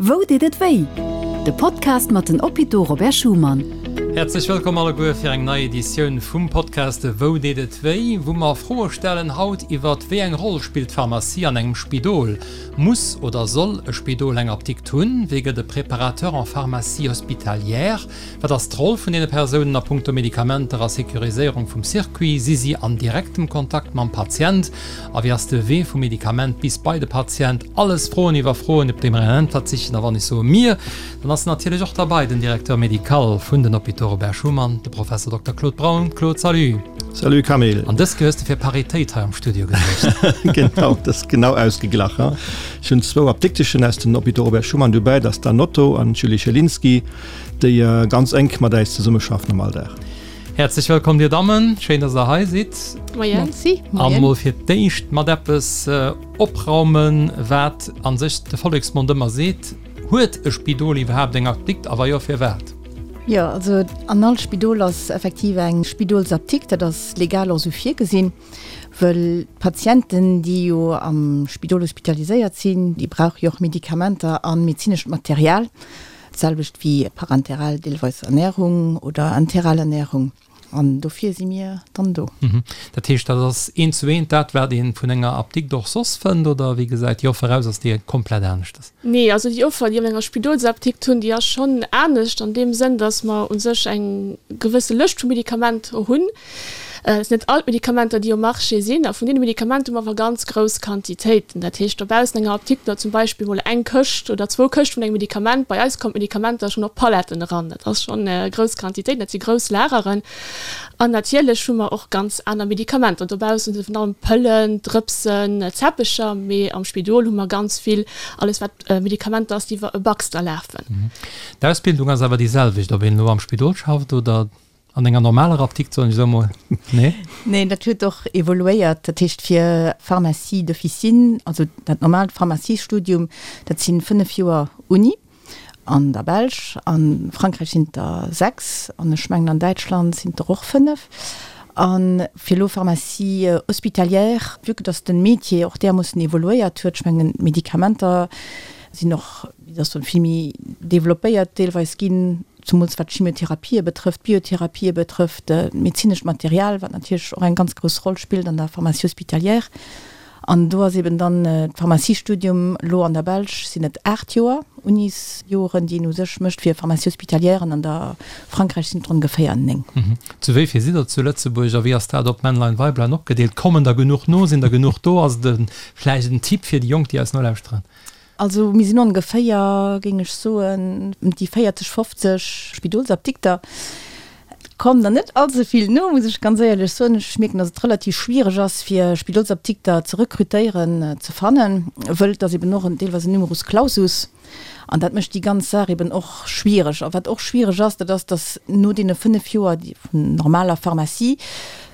Wou deet et wéi? De Podcast mat den Hôpitaux Robert Schuman. Häerzlech wëllkomm alleguer fir eng nei Editioun vum Podcast Wou deet et wéi? Wou mer Froe stellen haut iwwert wéi eng Roll spillt d'Pharmacie an engem Spidol? Muss oder soll e Spidol eng Apdikt hunn? Wéi gëtt e Préparateur en pharmacie hospitalière? Wat ass d'Roll vun deene Persounen a punkto Medikamenter a Securiséierung vum Circuit? Si si an direktem Kontakt mam Patient? A wéi ass de Wee vum Medikament bis bei de Patient? Alles Froen iwwer Froen, op déi mer eng Äntwert sichen. A wann ech soe mir, dann ass natierlech och derbei den Directeur médical vun den Hôpitaux Robert Schuman, de Professor Dokter Claude Braun. Claude, salut! Salut Camille! An dës Kéier hues de fir Paritéit hei am Studio gesuergt. Genau, dat ass genau ausgeglach. Ech hunn zwou Apdikteschen aus den Hôpitaux Robert Schuman dobäi, dat ass d'Anne Otto an d'Julie Schelinski. Déi ganz enk mat äis zesummeschaffen am Alldag. Häerzlech wëllkomm dir Dammen, schéin dass der hei sidd. Moien. Merci. An mol fir d'éischt mat eppes opraumen, wat an sech de Volleksmond ëmmer seet, Huet e Spidol iwwerhaapt eng Apdikt a wa jo, firwat? Jo, also an all Spidol ass effektiv eng Spidolsapdikt, dat ass legal och esou virgesinn, wëll d'Patienten, déi jo am Spidol hospitaliséiert sinn, déi brauche jo och Medikamenter a medezinescht Material. D'selwecht wéi parenteral deelweis Ernährung oder enteral Ernährung. An dofir si mir dann do. Dat heescht, dat ass eent zu eent dat, wat ee vun enger Apdikt och soss fënnt, oder wéi gesäit déi Offer aus? Ass déi komplett aneschtes? Nee, also déi Offer, déi mir an enger Spidolsapdikt hunn, déi ass schonn anescht an deem Sënn, datt mer u sech eng gewësse Lëscht vu Medikamenter hunn, Et sinn net all d'Medikamenter, déi um Marché sinn. A vun deene Medikamenter hu mer awer ganz grouss Quantitéiten. Dat heescht, dobaussen enger Apdikt oder zum Beispill mol eng Këscht oder zwou Këscht vun engem Medikament. Bei eis kommen d'Medikamenter schonn op Paletten eran. Dat ass schonn grouss Quantitéiten, dat si grouss Lageren. An natierlech hu mer och ganz aner Medikamenter. Dobaussen si virun allem Pëllen, Drëpsen, Zäppecher. Mee am Spidol hu mer ganz vill, alles wat Medikamenter ass, déi iwwer e Baxter lafen. D'Ausbildung ass awer déi selwecht, ob een elo am Spidol schafft oder An enger normaler Apdikt, soen ech esou emol, nee? Neen, dat huet och evoluéiert. Dat heescht fir Pharmacie d'officine, also dat normaalt Pharmaciestudium, dat si 5 Joer Uni an der Belsch, a Frankräich sinn et der 6 an ech mengen an Däitschland sinn et der och 5. A fir elo Pharmacie hospitalière, vue que dass de Métier och därmoossen evoluéiert huet, ech mengen d'Medikamenter sinn och, wéi soll ech soen, vill méi developpéiert deelweis ginn, zemools wat d'Chimiotherapie betrëfft, d'Biotherapië betrëfft, d'medezinescht Material, wat natierlech och eng ganz grouss Roll spillt an der Pharmacie hospitalière. An do ass eben dann d'Pharmaciestudium, elo an der Belsch sinn et 8 Joer Unisjoren, déi een u sech mécht fir Pharmacie hospitalière, an an der Frankräich sinn et ongeféier 9. Zu wéi vill sidd der zu Lëtzebuerg a wéi ass dat op Männlein, Weiblein opgedeelt? Kommen der genuch no? Sinn der genuch do? Ass et vläicht en Tipp fir déi Jonk, déi eis nolauschteren? Also mir sinn ongeféier, géing ech soen, ëm déi 40, 50 Spidolsapdikter. Et kommen der net all ze vill no, muss ech ganz éierlech soen. Ech mierken, datt et relativ schwiereg ass, fir Spidolsapdikter ze rekrutéieren, ze fannen, wëll et ass eben och deelweis en Numerus clausus an dat mécht déi ganz Saach eben och schwiereg. A wat och schwiereg ass, dat ass, datt no deene 5 Joer vun normaler Pharmacie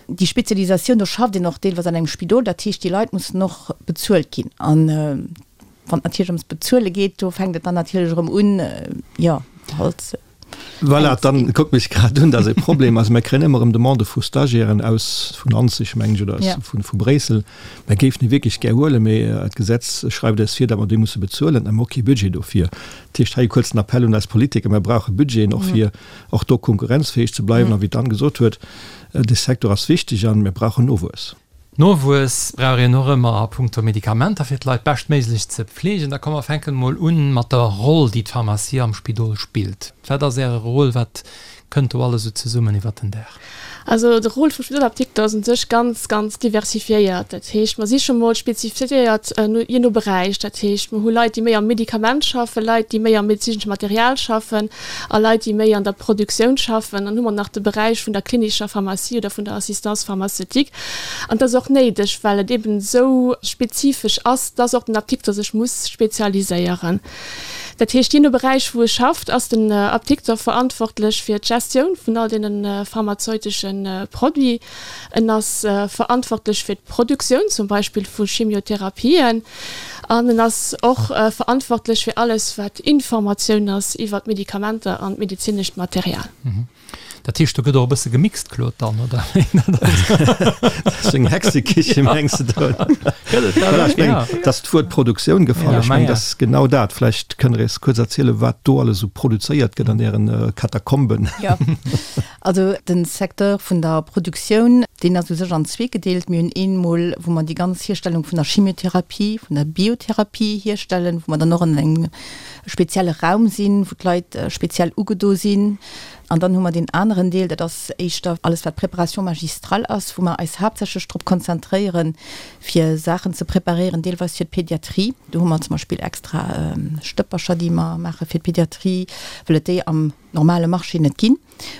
déi Spezialisatioun, do schafft een och deelweis an engem Spidol, dat heescht, déi Leit mussen och bezuelt ginn. An wann et natierlech ëms Bezuele geet, do fänkt et dann natierlech erëm un, jo, halt. Voilà, dann kuckt mech grad un, dat ass e Problem. Also mir kréien ëmmer erëm Demandë vu Stagiairen aus, vun Anzig, mengen ech, oder aus, vu, vu Bréissel. Mir géifen déi wierklech gär huelen, mee d'Gesetz schreift eis vir, datt mer déi musse bezuelen a mir hu kee Budget dofir. Dat heescht, hei e kuerzen Appell un eis Politiker, Mir brauche Budgeten och fir och do konkurrenzfäeg ze bleiwen. A wéi d'Anne gesot huet, de Secteur ass wichteg a mir brauchen Nowuess. Nowuess brauch een och ëmmer a punkto Medikamenter, fir d'Leit beschtméiglech ze pfleegen. Da komm mer fänken emol un mat der Roll, déi d'Pharmacie am Spidol spillt. Wat ass Äre Rôle? Wat kënnt do alles esou zesummen iwwert den Dag? Also de Rôle vum Spidolapdikter ass un sech ganz, ganz diversifiéiert. Dat heescht, mer si scho mol spezifiéiert jee no Beräich. Dat heescht, mer hu Leit, déi méi am Medikament schaffen, Leit, déi méi am medezinesche Material schaffen a Leit, déi méi an der Produktioun schaffen. Dann hu mer nach de Beräich vun der klinischer Pharmacie oder vun der Assistance pharmaceutique. An dat ass och néideg, well et eben esou spezifesch ass, dass och den Apdikter sech muss spezialiséieren. Dat heescht, jee no Beräich, wou e schafft, ass den Apdikter verantwortlech fir d'Gestioun vun all deene pharmazeutesche Produits. En ass verantwortlech fir d'Produktioun zum Beispill vu Chimiotherapien an en ass och verantwortlech fir alles, wat Informatioun ass iwwer d'Medikamenter an d'medezinescht Material. Dat heescht, do gëtt och e bësse gemixt, Claude, dann, oder? Dat ass eng Hexekiche, mengs de do? Gëtt et dat? Voilà, ech mengen, et ass d'Wuert Produktioun gefall. Ech mengen, dat ass genau dat. Vläicht kënnt Der eis kuerz erzielen, wat do alles esou produzéiert gëtt an Ären Katakomben. Jo, also de Secteur vun der Produktioun, deen ass u sech an zwee gedeelt. Mir hunn eemol, wou mer déi ganz Hierstellung vun der Chimiotherapie, vun der Biotherapie hierstellen, wou mer dann och an engem spezielle Raum sinn, wou d'Leit speziell ugedo sinn. An dann hu mer deen aneren Deel, dat ass éischter alles wat Préparation magistrale ass, wou mer eis haaptsächlech drop konzentréieren, fir Saachen ze preparéieren, deelweis fir d'Pédiatrie. Do hu mer zum Beispill extra Stëppercher, déi mer maache fir d'Pédiatrie, well et déi am normale Marché net ginn.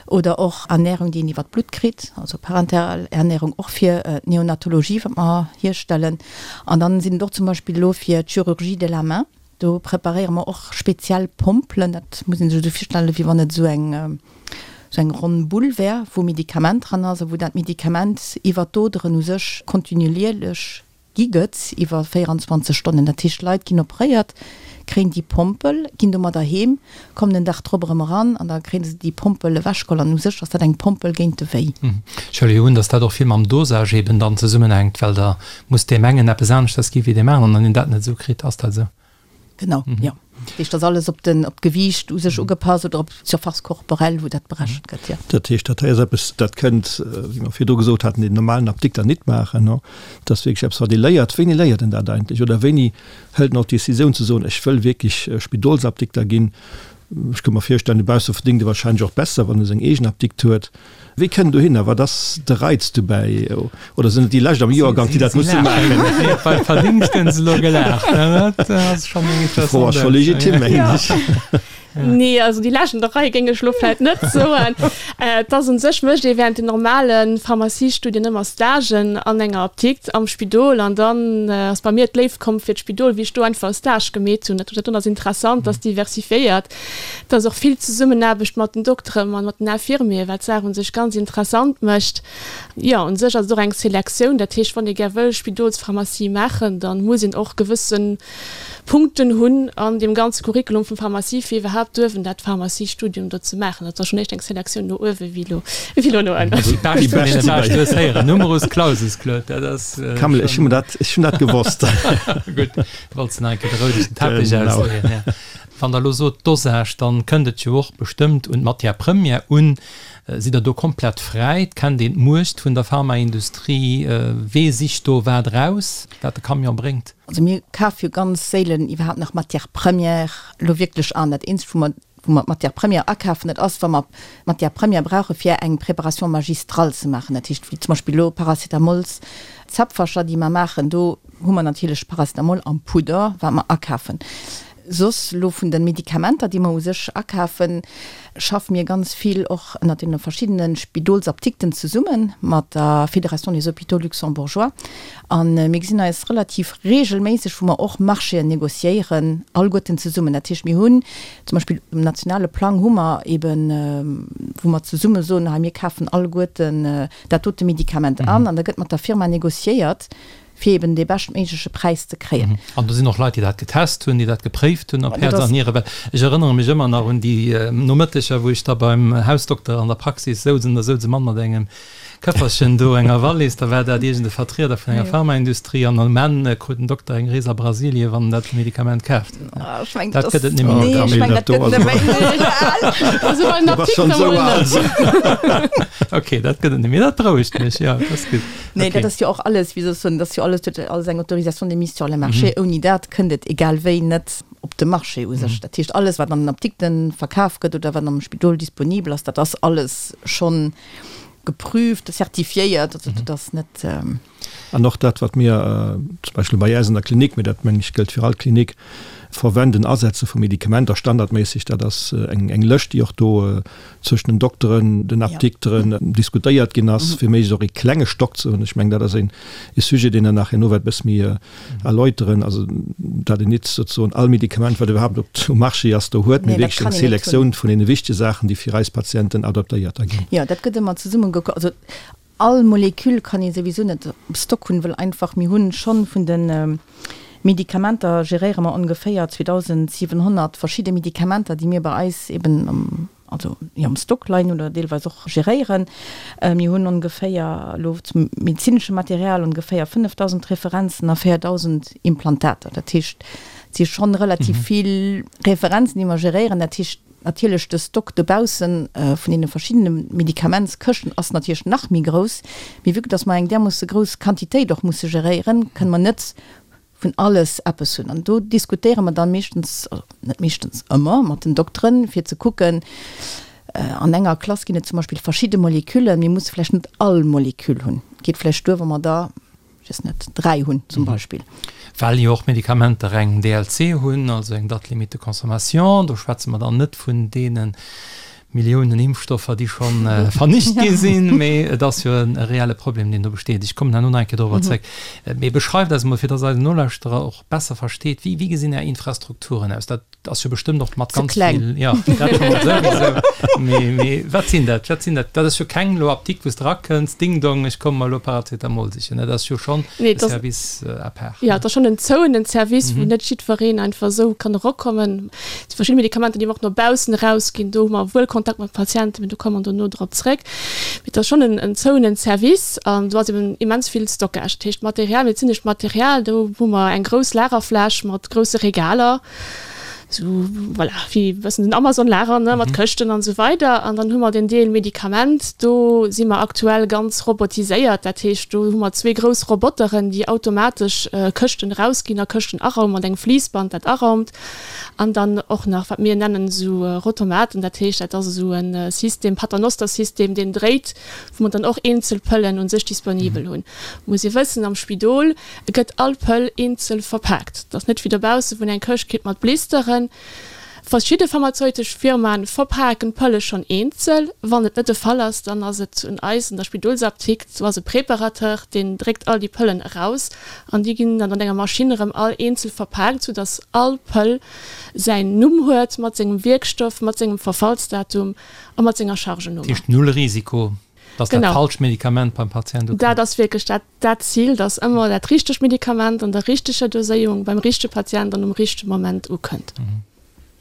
Oder och Ernährung, déi een iwwer d'Blutt kritt, also parenteral Ernährung och fir d'Neonatologie, wat mer hierstellen. An dann sinn et och zum Beispill elo fir d'Chirurgie de la main, Do preparéiere mer och speziell Pompelen, dat muss ee sech esou virstellen, wéi wann et esou eng, esou eng ronn Bull wär, wou Medikament dran ass a wou dat Medikament iwwer d'Oderen u sech kontinuierlech gi gëtt iwwer 24 Stonnen. Dat heescht, d'Leit ginn operéiert, kréien déi Pompel, ginn domadder heem, kommen den Dag drop erëm eran an da kréie se déi Pompel ewechgeholl an u sech ass dat eng Pompel géint de Wéi. Ech huele jo un, datt dat och vill mam Dosage eben dann zesummenhänkt, well der muss deem engen eppes aneschters gi wéi deem aneren an een dat net esou kritt. Ass dat esou? Genau, jo. Dat heescht, ass alles op den, op d'Gewiicht u sech ugepasst oder op d'Surface corporelle, wou dat berechent gëtt, jo. Dat heescht, dat hei ass eppes, dat kënnt, wéi mer virdru gesot haten, deen normalen Apdikter nit maachen. Dat ass wierklech eppes, wat ee léiert. Wéini léiert en dat eigentlech oder wéini hëlt en och d'Decisioun ze soen, ech wëll wierklech Spidolsapdikter ginn? Ech ka mer virstellen, dobausse verdéngt e wahrscheinlech och besser, wann e seng eegen Apdikt huet. Wéi kënnt en dohinner? Wat ass de Reiz dobäi? Oder sinn et déi Lescht am Joergank, déi dat musse maachen? Beim Verdéngscht hunn se elo gelaacht. Dat ass schonn eng Déi Fro ass scho legitim, mengen ech. Nee, also déi Lescht an der Rei géing ech elo vläicht net soen. Et ass un sech, mécht ee während den normale Pharmaciestudien ëmmer Stagen an enger Apdikt am Spidol an dann ass bei mir d'Léift komm fir d'Spidol, wéi ech do einfach e Stage gemeet hunn. Dat ass interessant, dat ass diversifiéiert. Et ass och vill Zesummenaarbecht mat den Dokteren an mat den Infirmieren, wat d'Saach un sech ganz interessant mécht. Jo, un sech ass et och eng Selektioun. Dat heescht, wann ee gär wëll Spidolspharmacie maachen, da muss een och gewësse Punkten hunn an deem ganze Curriculum vum Pharmacie, fir iwwerhaapt duerfen dat Pharmaciestudium do ze maachen. Dat ass schonn éischt eng Selektioun no uewe wéi elo, wéi elo no ënnen. Déi bescht vun deene Beschten hues héieren. Numerus clausus, Claude, dat ass Camille, ech hunn dat, ech hunn dat gewosst. Gutt, wollts de nach eng Kéier de roudegen Teppech ausleeën, ja. Wann Der elo sot Dosage, dann kënnt et jo och bestëmmt un d'Matière première un. Sidd Der do komplett fräi? Kennt een d'Muecht vun der Pharmaindustrie? Wee sicht do wat eraus, wat de Camion bréngt? Also mir kafe jo ganz séilen iwwerhaapt nach Matière première elo wierklech an. Dat eenzegt, wou mer, wou mer d'Matière première akafen, dat ass, wa mer Matière première brauche fir eng Préparation magistrale ze maachen. Dat heescht, wéi zum Beispill elo Paracetamols, Zäpfercher, déi mer maachen, do hu mer natierlech Paracetamol am Pudder, wat mer akafen. Soss elo vun de Medikamenter, déi mer u sech akafen, schaffe mir ganz vill och ënnert deene verschiddene Spidolsaptikten zesumme mat der Fédération des hôpitaux luxembourgeois. A mir gesinn eis relativ regelméisseg, wou mer och Marchéen négociéieren, alleguerten zesummen. Dat heescht, mir hunn zum Beispill um nationale Plang hu mer eeben, wou mer zesumme soen, hei mir kafen alleguerten dat dote Medikament an an da gëtt mat der Firma négociéiert, fir eben dee beschtméigleche Präis ze kréien. An do sinn och Leit, déi dat getest hunn, déi dat gepréift hunn op Häerz an Nieren. Well ech erënnere mech ëmmer nach un déi Nomëtteger, wou ech da beim Hausdokter an der Praxis souz an da souz e Mann mat engem Këfferchen do, enger Wallis, da war dat iergend e Vertrieder vun enger Pharmaindustrie an um Enn krut den Dokter eng Rees a Brasilien, wann en dat Medikament kaaft huet. Ech mengen, dat gëtt et net méi. Nee, ech mengen, dat gëtt et net méi. Also bei den Apdikter mol net. Okay, dat gëtt et net méi. Dat berouegt mech, jo, dat ass gutt. Nee, dat ass jo och alles, wéi soll ech soen, dat ass jo alles, huet alles eng Autorisation de mise sur le marché. Ouni dat kënnt et egal wéi net op de Marché u sech. Dat heescht, alles, wat an den Apdikte verkaf gëtt oder wat am Spidol disponibel ass, dat ass alles schonn geprüft, zertifiéiert. Also dat ass net. An och dat, wat mir zum Beispill bei äis an der Klinik, mee dat meng ech gëllt fir all Klinik, verwenden, Asetze vu Medikamenter standardméisseg, dat ass eng Lëscht, déi och do zwëschen den Dokteren, den Apdikteren diskutéiert ginn ass, fir méiglechst och ee klenge Stock ze hunn. Ech mengen, dat ass een e Sujet, deen Der nach herno wäert e bësse méi erläuteren, also dat een nit souzesoen all Medikament, wat iwwerhaapt op um Marché ass, do huet, mee wierklech eng Selektioun vun deene wichtege Saachen, déi fir eis Patienten adaptéiert da ginn. Jo, dat gëtt ëmmer zesumme gekuckt. Also all Molekül kann ee souwisou net op Stock hunn, well einfach mir hunn schonn vun de Medikamenter geréiere mer ongeféier 2.700 verschidde Medikamenter, déi mir bei eis eben am. also jo am Stock leien hunn oder deelweis och geréieren. Mir hunn ongeféier elo zum medezinesche Material ongeféier 5.000 Referenzen a 4.000 Implantater. Dat heescht, et si schonn relativ vill Referenzen, déi mer geréieren. Dat heescht natierlech, de Stock dobausse vun deene verschiddene Medikamentskëschten ass natierlech nach méi grouss. Mee vue que dass mer eng därmoosse grouss Quantitéit och musse geréieren, kënne mer net vun alles eppes hunn. An do diskutéiere mer dann meeschtens, also net meeschtens, ëmmer mat den Dokteren, fir ze kucken, an enger Klass ginn et zum Beispill verschidde Moleküllen, mir musse vläicht net all Moleküll hunn, et geet vläicht duer, wa mer der, ech weess net, 3 hunn zum Beispill. Well jo och Medikamenter eng DLC hunn, also eng Date limite de consommation, do schwätze mer dann net vun deene Milliounen Impfstoffer, déi scho vernicht gi sinn, mee et ass jo e reelle Problem, deen do besteet. Ech kommen herno nach eng Kéier dorobber zréck. Mee beschreift eis emol, fir dass eisen Nolauschterer och besser versteet, wéi, wéi gesinn Är Infrastrukturen aus? Dat ass jo bestëmmt och mat ganz vill. Jo, dat scho mol souwisou. Mee, mee wat sinn dat? Wat sinn dat? Dat ass jo keng elo Apdikt, wou s de erakënns, Ding dong, ech komme mer elo Paracetamol sichen. Dat ass jo schonn e Service à part. Jo, et ass schonn en zouenen Service, wou net jiddwereen einfach esou kann erokommen. Déi verschidde Medikamenter, déi mer och no baussen erausginn, do hu mer wuel Kontakt mat Patienten, mee do komme mer dono drop zréck. Mee et ass schonn en zouenen Service an do ass eben immens vill Stockage. Dat heescht Material, medezinescht Material, do hu mer eng grouss Lagerfläch mat grousse Regaler, esou voilà, wéi e bëssen den Amazon-Lager, ne, mat Këschten an esou weider. An dann hu mer den Deel Medikament, do si mer aktuell ganz robotiséiert. Dat heescht, do hu mer zwee grouss Roboteren, déi automatesch Këschten erausginn a Këschten araumen, mat engem Fliissband, dat araumt. An dann och nach, wat mir nennen esou Rotomaten, dat heescht, dat ass esou e System, Paternoster-System, deen dréit, wou mer dann och eenzel Pëllen u sech disponibel hunn. Muss ee wëssen, am Spidol gëtt all Pëll eenzel verpaakt. Dat ass net wéi dobaussen, wou een eng Këscht kritt mat Blisteren. Verschidde pharmazeutesch Firmae verpaken d'Pëlle schonn eenzel. Wann et net de Fall ass, dann ass et un eis an der Spidolsapdikt, do ass e Préparateur, deen dréckt all déi Pëllen eraus An déi ginn dann an enger Maschinn erëm all eenzel verpaakt, sou dass all Pëll säin Numm huet, mat sengem Wierkstoff, mat sengem Verfallsdatum a mat senger Chargenummer. Dat heescht null Risiko, dass dat falscht Medikament beim Patient ukënnt? Dat ass wierklech dat dat Zil, dass ëmmer dat richtegt Medikament an der richteger Doséierung beim richtege Patient an um richtege Moment ukënnt.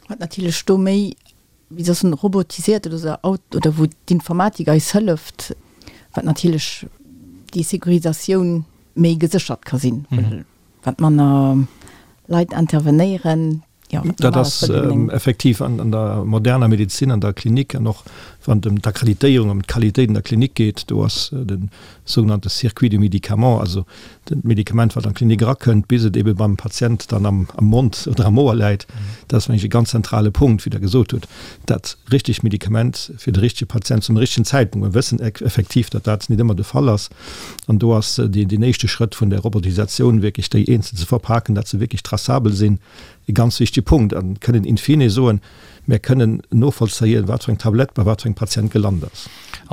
Wat natierlech do méi wéi soss en robotisiert oder sou Aut oder wou d'Informatik eis hëlleft, wat natierlech déi Securisatioun méi geséchert ka sinn, well wat manner Leit intervenéieren, jo, wat Dat ass effektiv an an der moderner Medezin, an der Klinik an och wann et ëm d'Akkreditéierung, ëm d'Qualitéit an der Klinik geet, do ass de sougenannte Circuit du médicament, also d'Medikament, wat an d'Klinik erakënnt, bis et ebe beim Patient dann am Mond oder am Ouer läit, dat ass, mengen ech, e ganz zentrale Punkt, wéi Der gesot hutt, dat richtegt Medikament fir de richtege Patient zum richtegen Zäitpunkt. Mir wëssen effektiv, datt dat net ëmmer de Fall ass. An do ass deen éischte Schrëtt vun der Robotisatioun, wierklech déi eenzel ze verpaken, datt se wierklech traçabel sinn, e ganz wichtege Punkt. A kënnen in fine soen, Mir kënnen novollzéien, wat fir eng Tablett bei wat fir engem Patient gelant ass.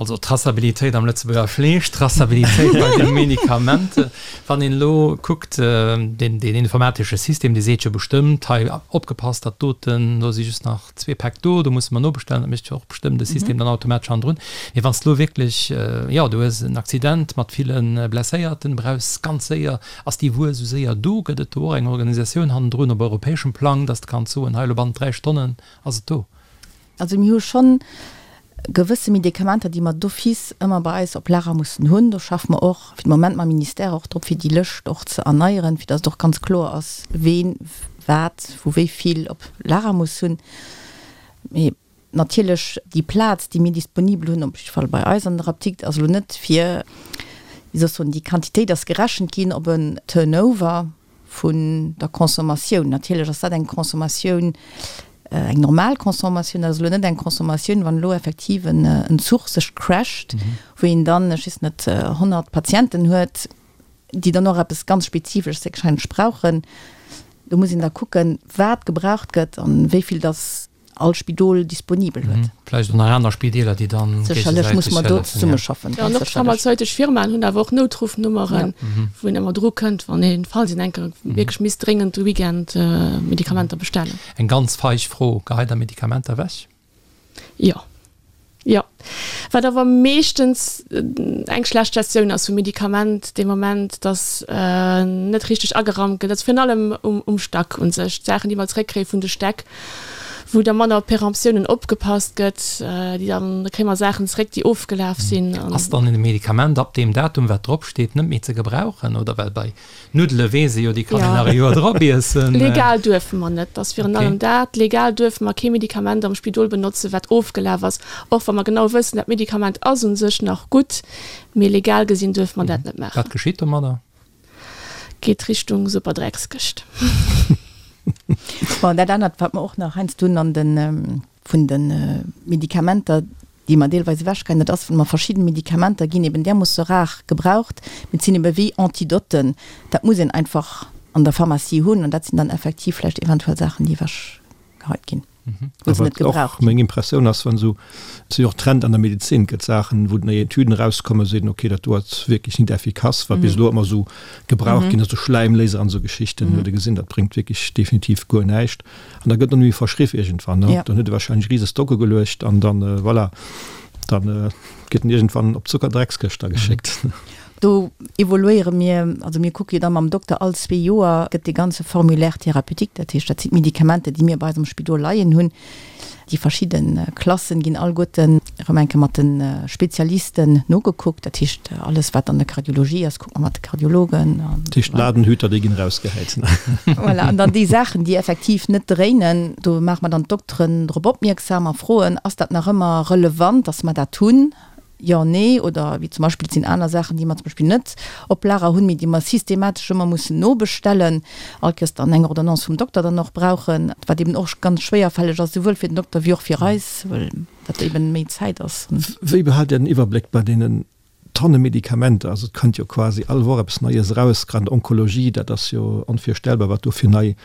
Also Traçabilitéit am Lëtzebuerger Fleesch, Traçabilitéit bei de Medikamenten. Wann een elo kuckt, deen informatesche System, dee seet jo bestëmmt, hei opgepasst, dat doten, do si just nach zwee Päck do, do musse mer nobestellen. Dat mécht jo och bestëmmt de System dann automatesch hannendrun. Mee wann s de elo wierklech, jo, du hues en Accident mat ville Blesséierten, brauchs ganz séier, ass déi Wuer esou séier do? Gëtt et do och eng Organisatioun hannendrun op europäeschem Plang, dass de kanns soen, hei elo bannent 3 Stonnen ass et do? Also mir hu schonn gewësse Medikamenter, déi mer d'office ëmmer bei eis op Lager mussen hunn. Do schaffe mer och fir de Moment mam Ministère och drop, fir déi Lëscht och ze erneieren, fir dass et och ganz kloer ass, ween wat wou wéi vill op Lager muss hunn. Mee natierlech déi Plaz, déi mir disponibel hunn, op jidde Fall bei eis an der Apdikt, ass elo net fir, wéi soll ech soen, déi Quantitéit ass gerechent ginn op en Turnover vun der Consommatioun. Natierlech ass dat eng Consommatioun, eng normal Consommatioun, dat ass elo net eng Consommatioun, wann elo effektiv en Zuch sech crasht, wou een dann, ech weess net, 100 Patienten huet, déi dann och eppes ganz Spezifesches héchstwahrscheinlech brauchen. Do muss een da kucken, wat gebraucht gëtt an wéi vill dass all Spidol disponibel huet. Vläicht och nach aner Spideeler, déi dann Sécherlech muss mer do zesummeschaffen, Jo, an och d'pharmazeutesch Firmaen hunn awer och Noutruffnummeren, wou een ëmmer dru kënnt, wann een, falls een enke wierklech misst dréngend de Weekend Medikamenter bestellen. Eng ganz feig Fro, Geheit Der Medikamenter ewech? Jo. Jo. Wat awer meeschtens eng schlecht Gestioun ass vum Medikament dee Moment, datt net richteg ageraumt gëtt. Also virun allem um Stack u sech, d'Saachen, déi mer zréckkréie vun de Stäck. Wou da manner op Peremptiounen opgepasst gëtt, déi dann, da kréie mer Saachen zeréck, déi ofgelaf sinn. Ass dann e Medikament ab deem Datum, wat drop steet, net méi ze gebrauchen? Oder well bei Nuddele weess ee jo, déi kann een nach e Joer drop iessen. Legal duerfe mer net, dat ass virun allem dat. Legal duerfe mer kee Medikament am Spidol benotzen, wat ofgelaf ass, och wa mer genau wëssen, dat Medikament ass u sech nach gutt, mee legal gesinn duerfe mer dat net maachen. Wat geschitt domadder? Geet Richtung Superdreckskëscht. Bon, dat anert, wat mer och nach heiansdo hunn an de vun de Medikamenter, déi mer deelweis ewechgeheien, dat ass, wa mer verschidden Medikamenter ginn eben därmoosse rar gebraucht, mee et sinn ebe wéi Antidoten, dat muss een einfach an der Pharmacie hunn an dat sinn dann effektiv vläicht eventuell Saachen, déi ewechgeheit ginn. Wou se net gebraucht ginn. Meng Impressioun ass, wann esou, et si jo och Trend an der Medezin, et gëtt Saachen, wou nei Etüden erauskommen, seet een, okay, dat do ass wierklech net effikass, wat bis elo ëmmer esou gebraucht ginn ass, esou Schläimléiser an esou Geschichten, huet ee gesinn, dat bréngt wierklech definitiv guer näischt. An da gëtt net méi verschriff iergendwann, ne? Dann huet e wahrscheinlech rise Stocke geluecht an dann, voilà, dann gëtt en iergendwann op d'Zuckerdreckskëscht da geschéckt. Do evoluéiere mir, also mir kucke jo da mam Dokter all zwee Joer gëtt dee ganze Formulaire thérapeutique, dat heescht dat sinn d'Medikamenter, déi mir bei eis am Spidol leien hunn, déi verschidde Klassen ginn alleguerten erëm eng Kéier mat de Spezialisten nogekuckt. Dat heescht alles wat an der Kardiologie ass, kucke mer mat de Kardiologen. Dat heescht d'Ladenhüter, déi ginn erausgehäit. Voilà, an dann déi Saachen, déi effektiv net dréinen, do maache mer dann d'Dokteren drop opmierksam a froen, ass dat nach ëmmer relevant, dass mer dat hunn? Jo, nee, oder wéi zum Beispill, et sinn aner Saachen, déi mer zum Beispill net op Lager hunn, mee déi mer systematesch ëmmer mussen nobestellen, all Kéiers dann eng Ordonnance vum Dokter dann och brauchen, wat eben och ganz schwéierfälleg ass, souwuel fir den Dokter wéi och fir eis, well dat eben méi Zäit ass. Wéi behaalt Dir den Iwwerbléck bei deenen Tonne Medikamenter? Also et kënnt jo quasi all Woch eppes Neies eraus, grad an der Onkologie, dat ass jo onvirstellbar, wat do fir nei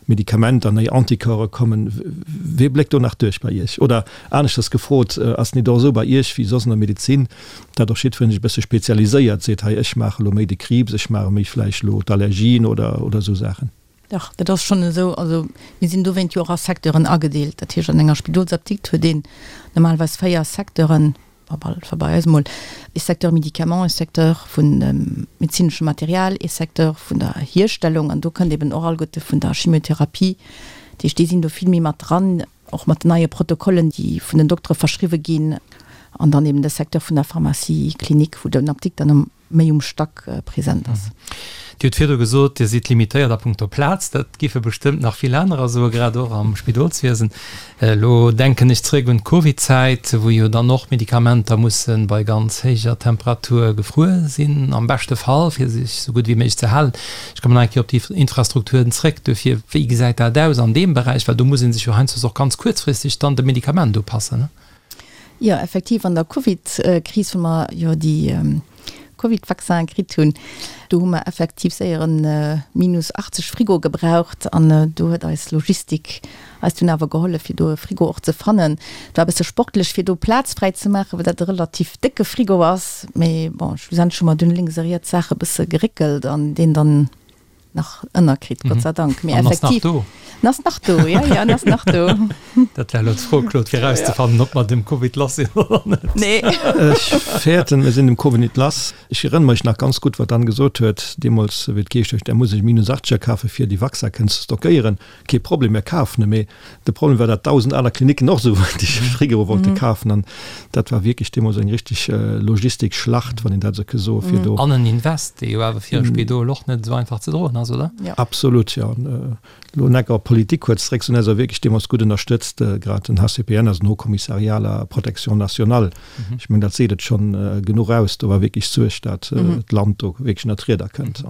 Medikamenter, nei Anticorpse kommen. Wee bléckt do nach duerch bei Iech? Oder aneschters gefrot, ass et nit och esou bei Iech wéi soss an der Medezin, dat och jiddwereen sech e bësse spezialiséiert, seet, hei ech maache lo méi de Kriibs, ech maache méi vläicht lo d'Allergien oder oder esou Saachen? Dach, dat ass schonn esou. Also mir sinn dowéint jo och a Secteuren agedeelt. Dat heescht, an enger Spidolsapdikt huet een normalerweis 4 Secteuren, Op bei eis emol ee Secteur Médicaments, ee Secteur vun dem medezinesche Material, ee Secteur vun der Hierstellung an do kënnt eben och alleguerte vun der Chimiotherapie. Dat heescht, déi sinn do vill méi mat dran, och mat den neie Protokollen, déi vun den Doktere verschriwwe ginn an dann eben de Secteur vun der Pharmacie clinique, wou den Apdikter méi um Stack present ass. Dir hutt virdru gesot, Dir sidd limitéiert a punkto Plaz. Dat géife bestëmmt nach vill anerer soen, grad och am Spidolswiesen. Elo denken ech zréck un d'Covidzäit, wou jo dann och Medikamenter musse bei ganz héijer Temperatur gefruer sinn, am beschte Fall, fir sech esou gutt wéi méiglech ze halen. Ech kommen nach eng Kéier op déi Infrastrukturen zréck. Duerfir, wéi gesäit dat aus an deem Beräich? Well do muss ee sech jo heiansdo och ganz kuerzfristeg dann dem Medikament upassen. Jo, effektiv, an der Covid-Kris, wou mer jo déi Covid-Vaccinen kritt hunn, do hu mer effektiv séier e minus 80 Frigo gebraucht an do huet eis Logistik eis dunn awer gehollef, fir do e Frigo och ze fannen. Et war e bësse sportlech, fir do Plaz fräi ze maachen, well dat e relativ décke Frigo ass, mee bon, schlussendlech hu mer dunn lénks a riets Saache bësse geréckelt an deen dann nach ënnerkritt, Gott sei Dank. Mee An ass nach effektiv. do. En ass nach do, ja, ja, en ass nach do. Dat war elo d'Fro, Claude, fir erauszefannen, ob mer dem Covid lass sinn oder net. Nee. Ech fäerten, mir sinn dem Covid nit lass. Ech erënnere mech nach ganz gutt, wat dann gesot huet deemools, wéi et geheescht huet, Der muss ech minus 80er kafen, fir déi Vaccin kënnen ze stockéieren. Kee Problem, mir kafen e. Mee de Problem war, datt 1.000 aner Klinicken och esou déi Frigoe wollte kafen. An dat war wierklech deemools eng richteg Logistikschlacht, wann een dat esou ke soen, fir do. An en Invest, dee jo awer fir e Spidol och net esou einfach ze droen ass, oder? Absolut, jo. Elo necker op d'Politik kuerz zréck, se hunn eis och wierklech deemools gutt ënnerstëtzt, grad den HCPN, also den Haut Commissariat à la Protection nationale. Ech mengen, dat seet et schonn genuch aus. Do war wierklech Suerg, datt d'Land do wierklech ënner d'Rieder kënnt.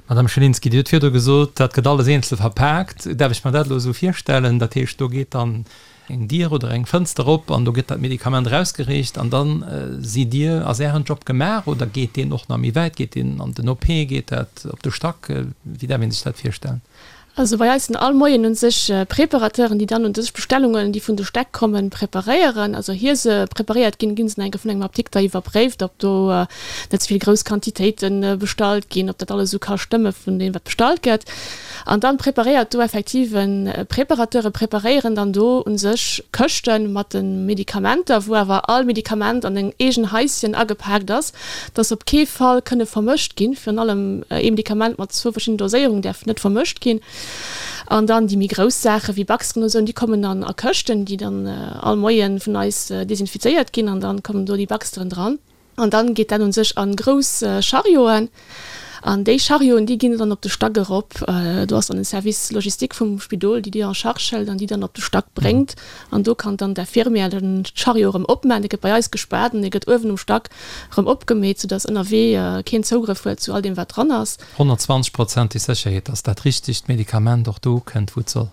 Madame Schelinski, Dir hutt virdru gesot, dat gëtt alles eenzel verpaakt. Däerf ech mer dat elo esou virstellen? Dat heescht, do geet dann eng Dier oder eng Fënster op an do gëtt dat Medikament erausgereecht an da sidd Dir, ass Ären Job gemaach oder geet deen och nach méi wäit? Geet deen an den OP? Geet dat op de Stack? Wéi däerf ee sech dat virstellen? Also bei eis sinn all Moien un sech Preparateuren, déi dann un sech Bestellungen, déi vun de Stäck kommen, preparéieren. Also ier se preparéiert ginn, ginn se nach eng Kéier vun engem Apdikter iwwerpréift, ob do net ze vill grouss Quantitéite bestallt ginn, ob dat alles esou ka stëmme vun deem wat bestallt gëtt. An dann preparéiert do effektiv e Preparateur, e preparéieren dann do un sech Këschte mat de Medikamenter, wou awer all Medikament an eng eegen Haischen agepaakt ass, dass op kee Fall kënne vermëscht ginn. Virun allem ee Medikament mat zwou verschiddenen Doséierungen däerf net vermëscht ginn. An dann déi méi grouss Saache wéi Baxteren oder sou, déi kommen dann a Këschten, déi dann all Moie vun eis desinfizéiert ginn an dann kommen do déi Baxteren dran. An dann geet dat un sech a grouss Charioten. An déi Charioten, déi ginn dann op de Stack erop. Do ass dann en Service logistique vum Spidol, déi déi en charge hëlt an déi dann op de Stack bréngt. An do kann dann d'Infirmière den Chariot erëm opmaachen. Dee gëtt bei eis gespaart an dee gëtt uewen um Stack erëm opgemeet, soudass ënnerwee keen Zougrëff huet zu all deem, wat dran ass. 120 Prozent déi Sécherheet, dass dat richtegt Medikament och do ukënnt, wou et soll.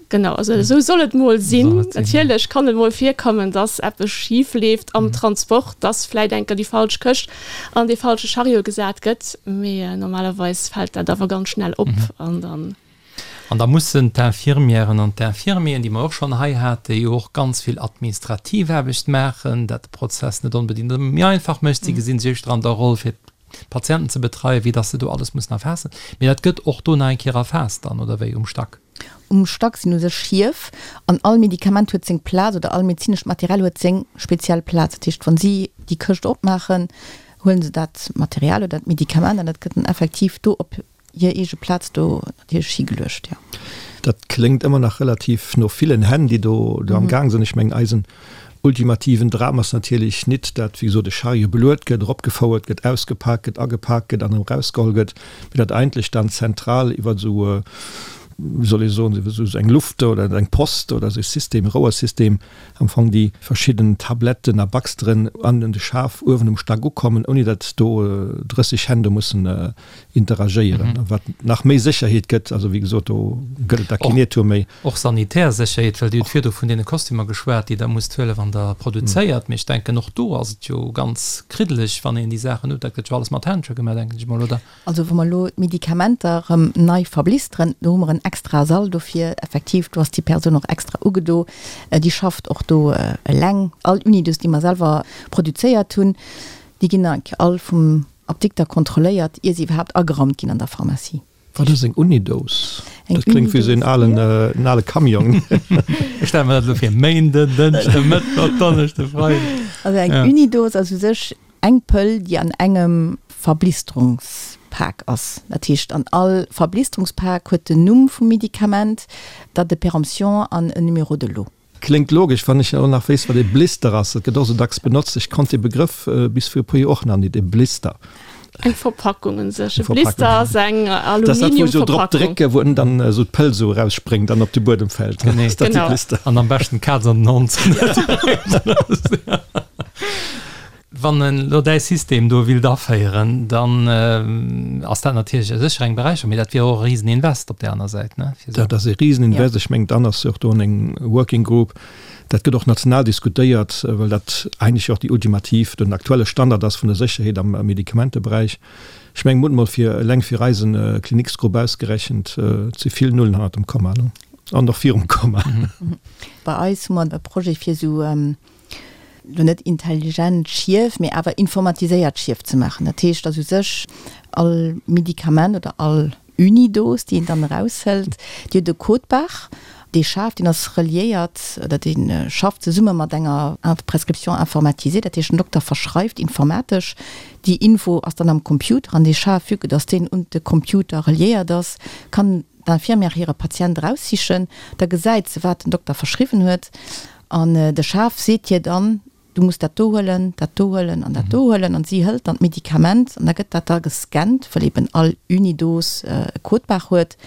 Genau, also esou soll et mol sinn. Natierlech kann et mol virkommen, dass eppes schif leeft am Transport, dass vläit eng Kéier déi falsch Këscht an dee falsche Chariot gesat gëtt, mee normalerweis fält dat awer ganz schnell op an dann. An da mussen d'Infirmièren an d'Infirmieren, déi mer och schonn hei haten, déi jo och ganz vill administrativ Aarbecht maachen, dat de Prozess net onbedéngt ëmmer méi einfach mécht, si gesinn sech éischter an der Roll fir d'Patienten ze betreien, wéi dass se do alles mussen erfaassen. Mee dat gëtt och do nach eng Kéier erfaasst dann, oder wéi, um Stack? Um Stack sinn u sech Schief an all Medikament huet seng Plaz oder all medezinescht Material huet seng speziell Plaz. Dat heescht, wa si déi Këscht opmaachen, huele se dat Material oder dat Medikament an dat gëtt dann effektiv do op hir eege Plaz do natierlech higeluecht, jo. Dat kléngt ëmmer nach relativ no villen Hänn, déi do am Gaang sinn. Ech mengen, eisen ultimativen Dram ass natierlech nit, dat, wéi gesot, e Chariot beluet gëtt, eropgefouert gëtt, ausgepak gëtt, agepak gëtt an erëm erausgeholl gëtt, mee dat eigentlech dann zentral iwwer esou, wéi soll ee soen, iwwer esou eng Luft oder eng Post oder esou e System, e Rouersystem, am Fong déi verschidden Tabletten a Baxteren an de Schaf uewen um Stack ukommen, ouni datt do 30 Hänn do mussen interagéieren, wat nach méi Sécherheet gëtt. Also wéi gesot, do gëtt et da keen Iertum méi. Och sanitär Sécherheet, well Dir hutt virdu vun deene Kostümer geschwat, déi Der musst huelen, wann Der produzéiert. Mee ech denken, och do ass et jo ganz kriddeleg, wann een déi Saachen huet. Dat gëtt jo alles mat Händschen gemaach, denken ech mol, oder? Also wa mer elo d'Medikamenter erëm nei verblisteren, do hu mer en extrae Sall dofir. Effektiv, do ass déi Persoun och extra ugedo. Déi schafft och do eleng. All Unidos, déi mer selwer produzéiert hunn, déi ginn all vum Apdikter kontrolléiert, ier se iwwerhaapt ageraumt ginn an der Pharmacie. Wat ass eng Unidose? Dat kléngt wéi esou en alen, en ale Camion. Ech stelle mer dat elo vir, Méinden, Dënschde, Mëttwoch, Donneschde, Freiden. Also eng Unidose ass u sech eng Pëll, déi an engem Verblisterungspak ass. Dat heescht, an all Verblisterungspak huet den Numm vum Medikament, d'Date de péremption an en Numéro de lot. Kléngt logesch, wann ech och nach wéisst, wat ee Blister ass. Dat gëtt och esou dacks benotzt. Ech konnt dee Begrëff bis vir e puer Joer och nach nit, e Blister. Eng Verpackung un sech. E Blister ass eng Aluminiumverpackung. Dat ass dat, wou se esou drop drécken, wou dann esou d'Pëll esou erausspréngt an op de Buedem fält. Genee. Ass dat de Blister? An am beschten d'Kaz an den Hond. Wann en elo däi System do willt aféieren, dann ass dat natierlech sécher eng Beräicherung, mee dat wier och e Riseninvest op där aner Säit, ne? Fir esou. Dat ass e Riseninvest. Ech mengen, dann ass jo och do eng Working Group. Dat gëtt och national diskutéiert, well dat eigentlech jo och déi ultimativ, den aktuelle Standard ass vun der Sécherheet am Medikamenteberäich. Ech mengen, mir hunn emol fir eleng fir eisen Kliniksgrupp ausgerechent, et si vill Nullen hannert dem Komma, ne? An och virum Komma. Bei eis hu mer e Projet fir esou lo net intelligent Schief, mee awer informatiséiert Schief ze maachen. Dat heescht, dass u sech all Medikament oder all Unidos, déi een dann eraushëlt, déi huet e Code-barre, dee schaaft, deen ass reliéiert oder dee schafft zesumme mat enger Prescription informatisée. Dat heescht, den Dokter verschreift informatesch, déi Info ass dann am Computer an dee Schaf, vue que dass deen un de Computer reliéiert ass, kann d'Infirmière hire Patient eraussichen, da gesäit se, wat den Dokter verschriwwen huet An de Schaf seet hir dann, Du muss dat do huelen, dat do huelen an dat do huelen. An si hëlt dann d'Medikament an da gëtt dat da gescannt, well eben all Unidos e Code-barre huet.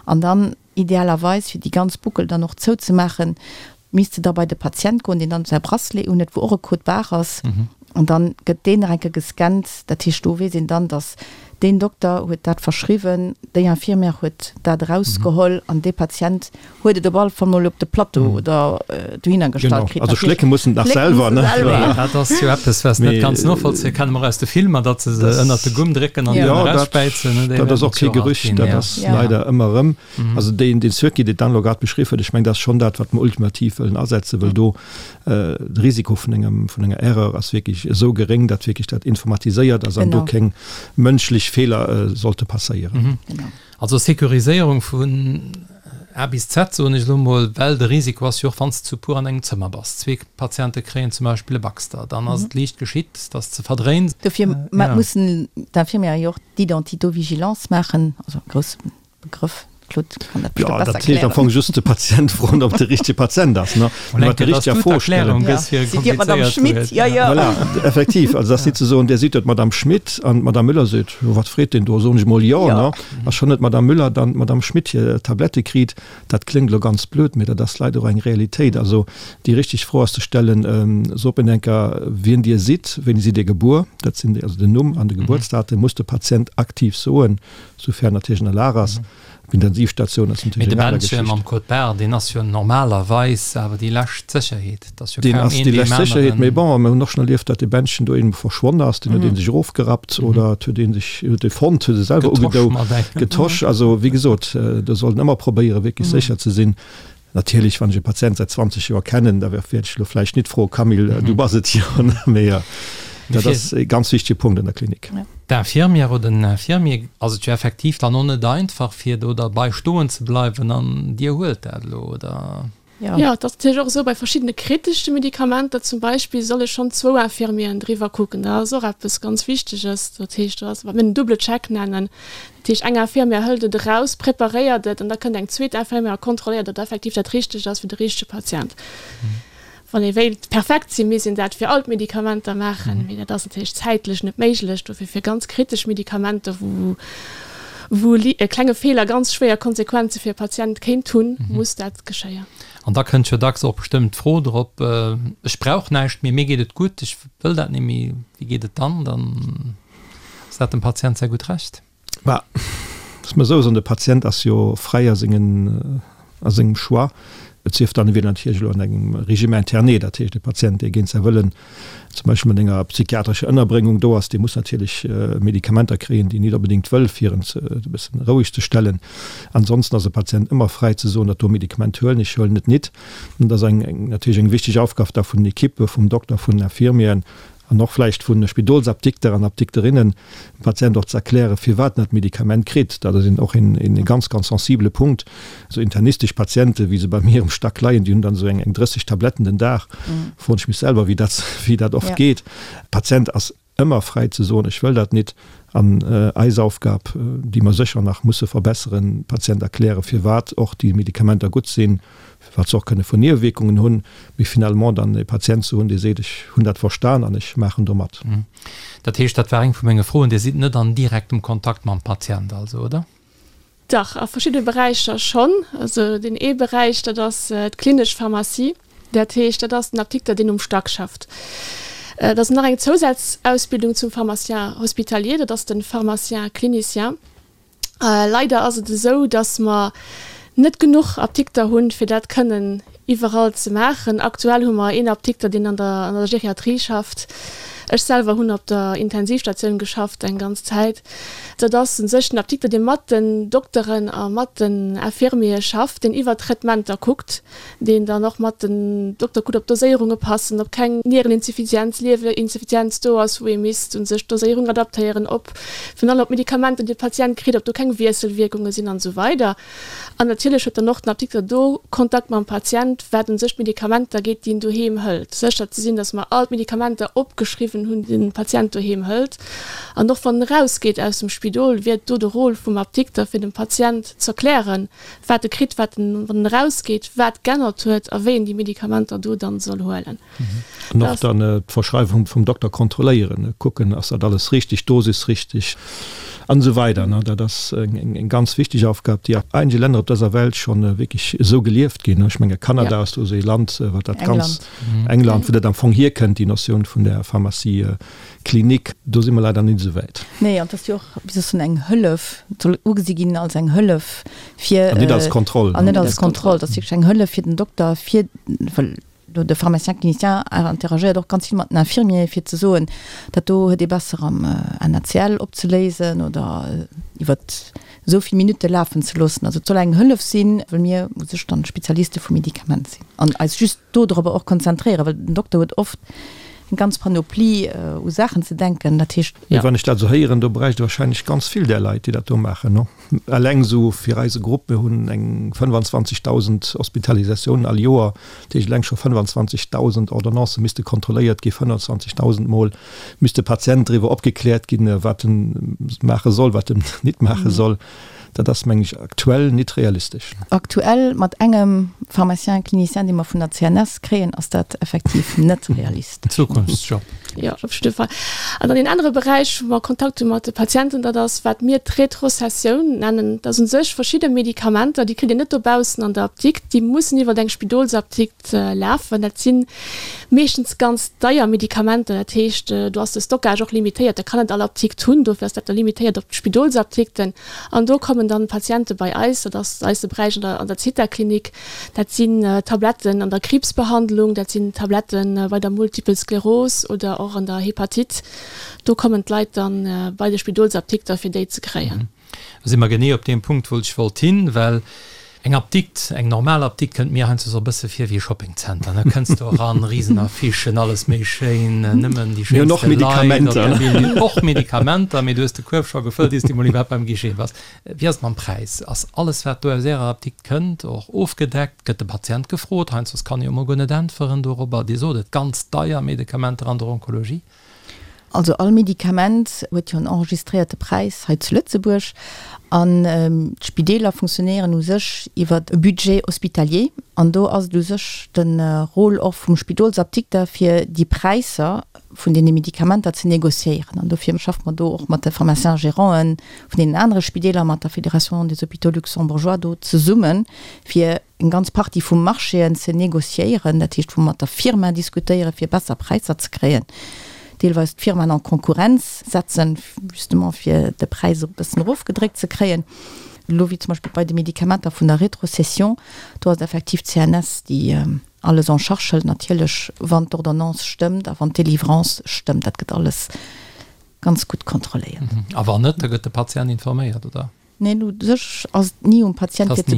An dann idealerweis, fir déi ganz Boucle dann och zouzemaachen, misst se da bei de Patient goen, deen dann säi Bracelet unhuet, wou och e Code-barre ass. An dann gëtt deen nach eng Kéier gescannt. Dat heescht, do weess een dann, datt deen Dokter huet dat verschriwwen, déi Infirmière huet dat erausgeholl an dee Patient huet et op alle Fall mol op de Plateau oder dohinner gestallt kritt. Also schlécke mussen et nach selwer, ne? Dat ass jo eppes, wat net ganz novollzéie kann, mer aus de Filmer, datt se se ënnert de Gumm drécken an dann erausspäizen. Dat ass och kee Gerücht, dat ass leider ëmmer erëm. Also deen Circuit, deen d'Anne elo grad beschriwwen huet, ech mengen, dat ass schonn dat, wat mer ultimativ wëllen asetzen, well do de Risiko vun engem, vun enger Erreur ass wierklech esou geréng, datt wierklech dat informatiséiert ass an do keng mënschlech Feeler sollte passéieren. Also Sécuriséierung vun A bis Z, soen ech elo mol, well de Risiko ass jo och, wann s de zu puer an engem Zëmmer bass, zwee Patiente kréien zum Beispill e Baxter, dann ass et liicht geschitt, datt s de verdréins. Dofir mussen d'Infirmiere jo och d'Identitovigilance maachen, also e grousse Begrëff. Claude kann dat bestimmt Ja, besser dat heescht am erklären. Fong just de Patient froen, ob de richtege Patient ass, ne? Mol eng Mat der Kéier, dass richteger du Fro stellen. d'Erklärung gëss fir e Sidd Dir d'Madame komplizéiert Schmit? Wuert. Ja, ja. Voilà, effektiv. Also, dat ass nit ze soen, Dir sidd jo d'Madame Schmit an d'Madame Müller seet, Jo, wat freet deen do? Soen ech mol jo, Ja. ne? A schonn huet d'Madame Müller dann d'Madame Schmit hir Tablette kritt. Dat kléngt elo ganz blöd, mee dat ass leider och eng Realitéit. Also, déi richteg Fro ass ze stellen, Sot mir enker, wien Dir sidd, wéini sidd Dir gebuer? Dat sinn déi, also den Numm an de Gebuertsdatum muss de Patient aktiv soen, soufern natierlech en a Lag ass. D'Intensivstatioun ass Mee natierlech de eng aner Bändche Geschicht. mam Code Barre, deen ass jo normalerweis awer déi lescht Sécherheet. Et ass jo Deen kaum ass een déi deem lescht Sécherheet, mee aneren. bon, mir hunn och schonn erlieft, datt dee Bändchen do eenmol verschwonn ass, deen huet ee sech erofgerappt oder et huet ee sech, huet e fonnt, huet e selwer Getosch ugedou, mat engem. getosch. Also, wéi gesot, do sollt een ëmmer probéieren, wierklech sécher ze sinn. Natierlech, wann ech e Patient säit 20 Joer kennen, da wäert ech elo vläicht nit froen, Camille, du bass et jo, mee dat ass e ganz wichtege Punkt an der Klinik. D'Infirmière oder den Infirmier ass et jo effektiv dann och net einfach, fir do derbei stoen ze bleiwen an Dir huelt dat elo, oder? Jo, et ass natierlech och esou, bei verschiddene kritesche Medikamenter zum Beispill solle schonn zwou Infirmieren driwwer kucken. Dat ass och eppes ganz Wichteges. Dat heescht, dat ass, wat mir den double check nennen. Dat heescht, eng Infirmière hëlt et eraus, preparéiert et an da kënnt eng zweet Infirmière a kontrolléiert, datt effektiv dat Richtegt ass fir de richtege Patient. Wann ee wéilt perfekt sinn, misst een dat fir all d'Medikamenter maachen, mee dat ass natierlech zäitlech net méiglech. Dofir fir ganz kritesch Medikamenter, wou wou e klenge Feeler ganz schwéier Konsequenze fir e Patient kéint hunn, muss dat geschéien. An da kënnt jo dacks och bestëmmt d'Fro drop, Ech brauch näischt méi, mir geet et gutt, ech wëll dat net méi. Wéi geet et dann? Dann ass dat dem Patient säi gutt Recht. Bah, loosse mer esou soen, de Patient ass jo fräi a sengen, a sengem Choix. Et sief dann, e wier natierlech elo an engem Régime interné, dat heescht e Patient, dee géint säi Wëllen zum Beispill mat enger psychiatrescher Ënnerbréngung do ass, dee muss natierlech Medikamenter kréien, déi en nit onbedéngt wëll, fir en ze e bëssen roueg ze stellen. Ansonsten ass e Patient ëmmer fräi ze soen, dat do Medikament huelen ech, huelen et nit. An dat ass eng, eng natierlech eng wichteg Aufgab da vun den Equippe, vum Dokter, vun den Infirmieren, an och vläicht vu Spidolsapdikter an Apdikterinnen, dem Patient och ze erklären, firwat en dat Medikament kritt. Dat ass een och een ganz, ganz sensibele Punkt. Esou internistesch Patienten, wéi se bei mir um Stack leien, déi hunn dann esou eng 30 Tabletten den Dag. Froen ech mech selwer, wéi dat, wéi dat oft geet. Patient ass ëmmer fräi ze soen, ech wëll dat nit. An eis Aufgab, déi mer sécher nach musse verbesseren, Patient erklären, firwat och déi Medikamenter gutt sinn, wat se och kënne vun Niewewierkungen hunn, mee finalement dann e Patient ze hunn, dee seet, ech hunn dat verstan an ech maachen do mat. Dat heescht, dat war eng vu menge Froen, Dir sidd net an direktem Kontakt mam Patient also, oder? Dach, a verschiddene Beräicher schonn. Also deen ee Beräich, dat ass d'klinesch Pharmacie. Dat heescht, dat ass den Apdikter, deen um Stack schafft. Et ass nach eng Zousazausbildung zum Pharmacien hospitalier, dat ass de Pharmacien clinicien. Leider ass et esou, datt mer net genuch Apdikter hunn, fir dat kënnen iwwerall ze maachen. Aktuell hu mer een Apdikter, deen an der an der Geriatrie schafft. Ech selwer hunn op der Intensivstatioun geschafft eng ganz Zäit. Dat ass u sech den Apdikter, dee mat den Dokteren a mat den Infirmiere schafft, deen iwwer d'Traitementer kuckt. deen dann och mat den Dokter kuckt, ob d'Doséierunge passen, ob keng Niereninsuffizienz, Liewerinsuffizienz do ass, wou ee misst u sech d'Doséierung adaptéieren, ob virun allem ob d'Medikamenter, déi de Patient kritt, ob do keng Wiesselwierkunge sinn an esou weider. An natierlech huet dann och den Apdikter do Kontakt mam Patient, wat u sech d'Medikamenter geet, déi en doheem hëlt, sécher ze sinn, dass mer all d'Medikamenter opgeschriwwen hunn, déi den Patient doheem hëlt. An och wann en erausgeet aus dem Spidol, wier et do de Rôle vum Apdikter, fir dem Patient z'erklären, wat e kritt, wat en, wann en erausgeet, wat g'ännert huet a wéi en déi Medikamenter do dann soll huelen. An och dann d'Verschreiwung vum Dokter kontrolléieren, kucken, ass dat alles richtig, Dosis richtig an esou weider. Dat ass eng ganz wichteg Aufgab, déi a einige Länner op dëser Welt scho wierklech esou gelieft ginn. Ech menge Kanada ass do esou ee Land, wat dat ganz, England, wou dat am Fong hierkënnt, déi Notioun vun der Pharmacie Klinik, do si mer leider net esou wäit. Nee, an et ass jo och, wéi soss soen, eng Hëllef, et soll ugesi ginn als eng Hëllef fir. An net als Kontroll. An net als Kontroll. Et ass wierklech eng Hëllef fir den Dokter, fir, well do de Pharmacien clinicien interagéiert och ganz vill mat den Infirmieren, fir ze soen, dat do huet ee besser am NaCl opzeléisen oder iwwert esou vill Minutte lafen ze loossen. Also et soll eng Hëllef sinn, well mir u sech dann Spezialiste vum Medikament sinn an eis just dodropper och konzentréieren, well den Dokter huet oft eng ganz Panoplie u Saachen ze denken. Dat heescht. Mee wann ech dat esou héieren, do bräicht et wahrscheinlech ganz vill där Leit, déi dat do maachen, no? Eleng esou fir eise Grupp, mir hunn eng 25.000 Hospitalisatiounen all Joer, dat heescht eleng scho 25.000 Ordonnancë misste kontrolléiert ginn, 25.000 Mol misst de Patient driwwer opgekläert ginn, wat en maache soll, wat en nit maache soll. Dat ass, meng ech, aktuell nit realistesch. Aktuell mat engem Pharmacien clinicien, dee mer vun der CNS kréien, ass dat effektiv net realistesch. Zukunftsjob. Jo, op jidde Fall. An dann een anere Beräich, wou mer Kontakt hu mat de Patienten, dat ass, wat mir d'Retrocessioun nennen. Dat ass u sech verschidde Medikamenter, déi kritt een net dobaussen an der Apdikt, déi mussen iwwer eng Spidolsapdikt lafen. Dat si meeschtens ganz deier Medikamenter, dat heescht, do ass de Stockage och limitéiert, dat kann net all Apdikt hunn, dofir ass dat da limitéiert op d'Spidolsapdikten. An do kommen dann d'Patiente bei eis, dat ass eise Beräich an der an der Zithaklinik, dat sinn Tabletten an der Kriibsbehandlung, dat sinn Tabletten bei der Multiple Skleros oder och an der Hepatite. Do kommen d'Leit dann bei de Spidolsapdikter fir déi ze kréien. Do si mer genee op deem Punkt, wou ech wollt hin, well eng Apdikt, eng normal Apdikt kënnt mir heiansdo esou e bësse vir wéi e Shoppingzenter, ne? Kënns do eran, risen Affichen, alles méi schéin, nëmmen déi Mir hunn och schéinste Leit op Medikamenter. der Bün, och Medikamenter, mee du hues de Kuerf scho gefëllt, iers du mol iwwerhaapt beim Guichet bass. Wéi ass et mam Präis? Ass alles, wat do aus Ärer Apdikt kënnt, och ofgedeckt? Gëtt de Patient gefrot? Heiansdo kann e jo mol guer net äntweren dorobber. Dir sot et, ganz deier Medikamenter an der Onkologie. Also all Medikament huet jo en enregistréierte Präis hei zu Lëtzebuerg an d'Spideeler funktionéieren u sech iwwer e Budget hospitalier an do ass et u sech de Rôle och vum Spidolsapdikter fir déi Präisser vun deene Medikamenter ze négociéieren an dofir schaffe mer do och mat de Pharmaciens-gérant'en vun deenen anere Spideeler, mat der Fédération des hôpitaux luxembourgeois do zesummen, fir eng ganz Partie vu Marchéen ze négociéieren, dat heescht wou mer mat der Firma diskutéieren, fir besser Präisser ze kréien, deelweis d'Firmaen en Konkurrenz setzen, justement fir de Präis e bëssen erofgedréckt ze kréien. Elo wéi zum Beispill bei de Medikamenter vun der Rétrocession, do ass et effektiv d'CNS, déi alles en charge hëlt, natierlech wann d'Ordonnance stëmmt a wann d'Délivrance stëmmt. Dat gëtt alles ganz gutt kontrolléiert. A wann net, da gëtt de Patient informéiert, oder? Neen, u sech ass et ni um Patient fir ze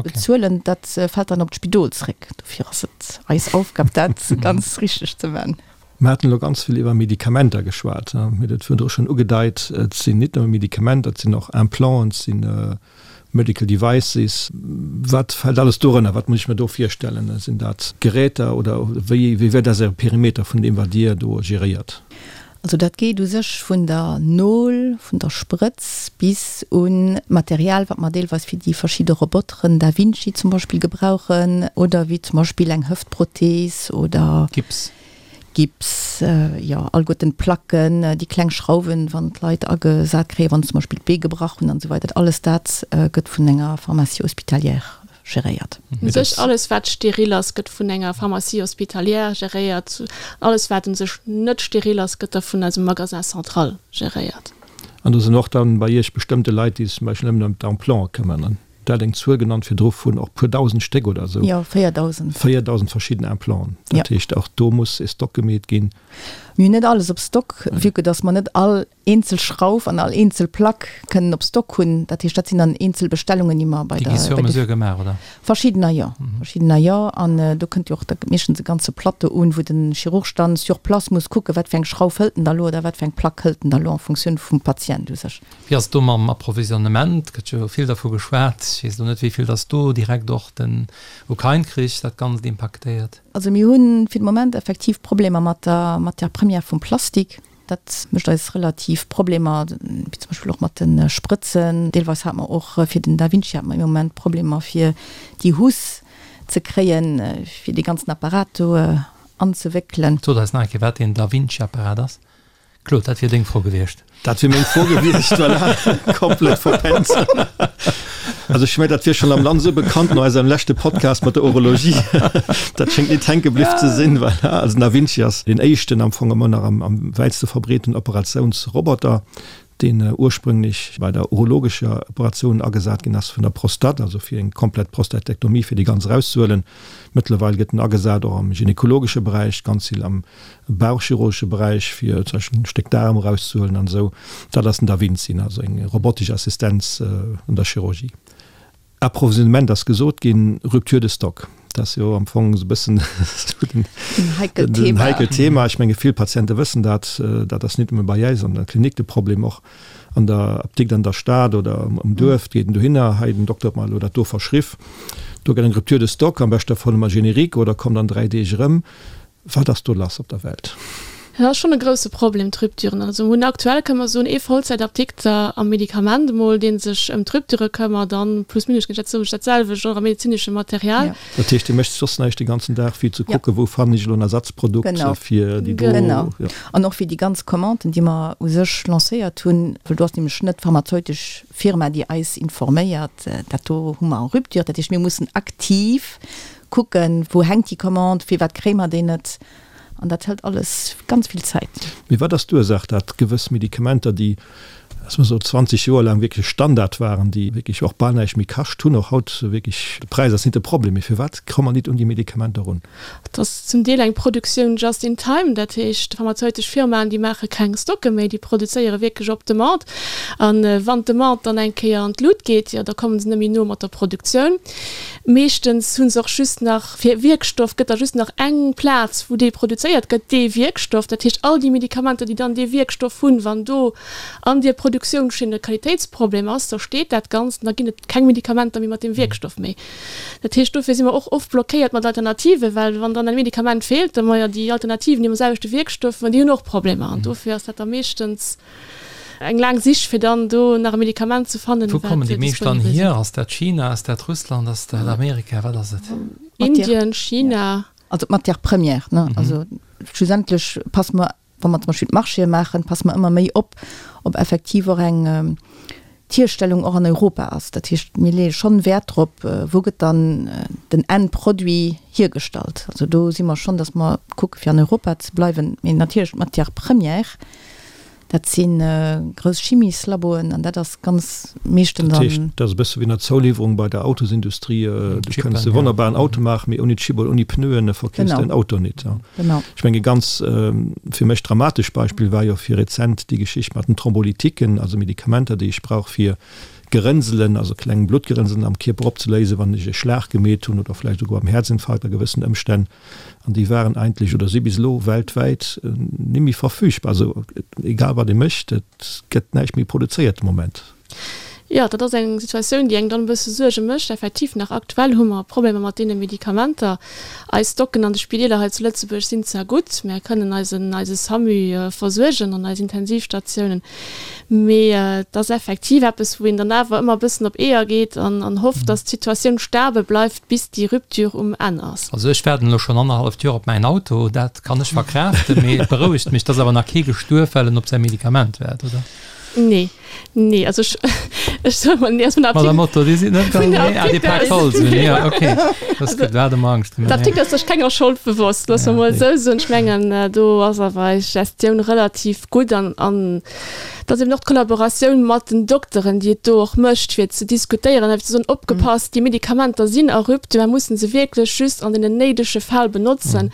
bezuelen, dat fält dann op d'Spidol zréck. Dofir ass et eis Aufgab dat ganz richteg ze man. Mir haten elo ganz vill iwwer Medikamenter geschwat. Mir hunn et virdru schonn ugedeit, et sinn nit nëmme Medikamenter, et sinn och Implanten, et si Medical Devices. Wat fält alles dorënner? Wat muss ech mir do virstellen? Sinn dat Geräter oder wéi wéi ass Äre Perimeter vun deem wat Dir do geréiert? Also dat geet u sech vun der Nol, vun der Sprëtz bis un d'Material, wat mer deelweis fir déi verschidde Roboteren, Da Vinci zum Beispill, gebrauchen oder wéi zum Beispill eng Hëftprothees oder. Gips. Gips, jo, alleguerten d'Placken, déi kleng Schrauwen, wann d'Leit agesat kréien, wann se zum Beispill d'Bee gebrach hunn an esou weider. Alles dat gëtt vun enger Pharmacie hospitalière geréiert. U sech alles wat steril ass, gëtt vun enger Pharmacie hospitalière geréiert. Alles wat u sech net steril ass, gëtt da vun eisem Magasin central geréiert. An do sinn och dann bei Iech bestëmmte Leit, déi sech zum Beispill nëmmen ëm d'Implante këmmern. Der hat eng Zuel genannt virdru vun och puer dausend Stéck oder esou. Jo, 4.000. 4.000 verschidden Implanten. Dat heescht, och do muss e Stock gemeet ginn. Mir hunn net alles op Stock, vue que dass mer net all eenzel Schrauf an all eenzel Plack kënnen op Stock hunn. Dat heescht, dat sinn dann eenzel Bestellungen, déi mer bei der. Déi gi sur mesure gemaach, oder? Verschiddener jo, verschiddener jo. An do kënnt jo och da meeschtens e ganze Plateau un, wou de Chirurg dann sur place muss kucken, wat fir eng Schrauf hëlt en da lo oder wat fir eng Plack hëlt en da lo en Funktioun vum Patient u sech. Wéi ass et do mam Approvisionnement? Gëtt jo vill dervu geschwat. Ech weess elo net, wéi vill dass do direkt och den Ukrain-Krich dat Ganzt impaktéiert. Also mir hu fir de Moment effektiv Problemer mat der Matière première vum Plastik. Dat mécht eis relativ Problemer, wéi zum Beispill och mat de Sprëtzen. Deelweis hate mer och fir den Da Vinci hate mer im Moment Problemer fir déi Housse ze kréien, fir dee ganzen Apparat do anzewéckelen. Sot eis nach eng Kéier, wat deen Da Vinci-Apparat ass. Claude, dat wier deng Fro gewiescht. Dat wier meng Fro gewiescht, voilà. Komplett verpennt. Also ech mengen, dat wier schonn am Land esou bekannt no eisem leschte Podcast mat der Urologie. Dat schéngt nit hänke bliww ze sinn, voilà. Also den Da Vinci ass deen éischten, am Fong ëmmer nach am am wäitste verbreeten Operatiounsroboter, deen ursprünglech bei der urologescher Operatioun agesat ginn ass vun der Prostate, also fir eng komplett Prostatektomie, fir déi ganz erauszehuelen. Mëttlerweil gëtt en agesat och am gynekologesche Beräich, ganz vill am bauchchirurgesche Beräich, fir zum Beispill en Stéck Daarm erauszehuelen an esou. Dat ass den Da Vinci, also eng robotesch Assistenz an der Chirurgie. Approvisionnement ass gesot ginn, Rupture de stock, dat ass jo am Fong esou e bëssen den heikelt Thema. Ech menge vill Patiente wëssen dat. Dat ass nit nëmme bei äis an der Klinik de Problem, och an der Apdikt an der Stad oder um Duerf geet en dohinner, hei den Dokter huet mer elo dat do verschriff, do gëtt eng Rupture de stock, am beschte Fall hu mer Générique oder kommt an 3 Deeg erëm. Wat ass do lass op der Welt? Dat ass schonn e grousse Problem, d'Rupturen. Also mir hunn aktuell, kënne mer soen, ee Vollzäitapdikter am Medikament emol, dee sech ëm d'Rupture këmmert, an plus minus géint dat soen ech dat selwecht och am medezinesche Material. Dat heescht, Dir mécht soss näischt de ganzen Dag, wéi ze kucken, wou fannen ech elo en Ersatzprodukt fir déi do. Genau. An och fir déi ganz Commanden, déi mer u sech lancéiert hunn, well do ass nämlech net d'pharmazeutesch Firma, déi eis informéiert, dat do hu mer en rupture. Dat heescht, mir mussen aktiv kucken, wou hänkt déi Commande, firwat kréie mer déi net. An dat hëlt alles ganz vill Zäit. Mee wat ass d'Ursaach, dat gewëss Medikamenter, déi, lass mer soen, 20 Joer laang wierklech Standard waren, déi wierklech och bal näischt méi kascht hunn, och haut wierklech, de Präis ass nit de Problem, mee firwat komme mer nit un déi Medikamenter erun? Et ass zum Deel eng Produktioun just in time, dat heescht, pharmazeutesch Firmaen, déi maache keng Stocke méi, déi produzéiere wierklech op Demande. A wann d'Demande dann eng Kéier an d'Lut geet, jo da komme se net méi no mat der Produktioun. Meeschtens hu se och just nach, fir Wierkstoff gëtt da just nach eng Plaz, wou dee produzéiert gëtt, dee Wierkstoff. Dat heescht, all déi Medikamenter, déi dann dee Wierkstoff hunn, wann do an deer Produktiounschinn e Qualitéitsproblem ass, da steet dat Ganzt an da ginn et keng Medikamenter méi mat deem Wierkstoff méi. Dat heescht, dofir si mer och oft blockéiert mat Alternativen, well wann dann e Medikament feelt, da ma jo déi Alternativen, déi mam selwechte Wierkstoff, ma déi hunn och Problemer. An dofir ass dat da meeschtens Eng laang Sich fir dann do nach e Medikament ze fannen. Wou kommen déi meescht dann hier? Ass dat China, ass dat Russland, ass dat Amerika, wat ass et? Indien, China. Also d'Matière première, ne? Also schlussendlech passe mer, wa mer zum Beispill d'Marchéë maachen, passe mer ëmmer méi op, ob effektiv och eng d'Hierstellung och an Europa ass. Dat heescht, mir leeë schonn Wäert drop, wou gëtt dann den Endproduit hiergestallt. Also do si mer schonn, datt mer kucke fir an Europa ze bleiwen. Mee natierlech d'Matière première, dat si grouss Chimieslaboen an dat ass ganz meeschtens an. Dat heescht, dat ass e bësse wéi an der Zouliwwerung bei der Autosindustrie, du kënns e wonnerbaren Auto maachen, mee ouni Chip oder ouni Pneuen verkeefs de den Auto nit. Genau. Ech mengen, e ganz fir mech dramatesch Beispill war jo fir rezent déi Geschicht mat den Thrombolytiquen, also Medikamenter, déi ech brauch fir Gerënselen, also kleng Bluttgerënselen am Kierper opzeléisen, wann ech e Schlag gemeet hunn oder vläicht esouguer am Häerzinfarkt a gewëssen Ëmstänn. An déi waren eigentlech oder si bis elo weltwäit ni méi verfügbar. Also egal wat ee mécht, et gëtt näischt méi produzéiert de Moment. Jo, dat ass eng Situatioun, déi engem dann e bësse Suerge mécht. Effektiv, nach aktuell hu mer Problemer mat deene Medikamenter. Eis Stocken an de Spideeler hei zu Lëtzebuerg sinn zwar gutt, mär kënnen eisen, eise SAMU versuergen an eis Intensivstatiounen, mee et ass effektiv eppes, wou een dann awer ëmmer e bëssen op Eeër geet an, an hofft, dass d'Situatioun stabel bleift, bis déi Rupture um Enn ass. Also ech waarden elo schonn annerhalleft Joer op mäin Auto, dat kann ech verkraaften, mee et berouegt mech, dass awer nach kee gestuerf, well en op säi Medikament waart, oder? Nee, nee, also ech, ech soe mol, nee, also vun der Apdik. Madame Otto, Dir sidd net ganz, nee, ah, Dir paakt Holz un, jo, okay. Dat ass gutt, do hat e mer Angscht gemaach. D'Apdikt ass sech kenger Schold bewosst, loosse mer mol esou soen. Ech mengen, do ass awer eis Gestioun relativ gutt an, an et ass eben och d'Kollaboratioun mat den Dokteren, déi et do och mécht, fir ze diskutéieren a fir ze soen, opgepasst, déi Medikamenter sinn a Rupture, mer mussen se wierklech just an deenen néidege Fäll benotzen.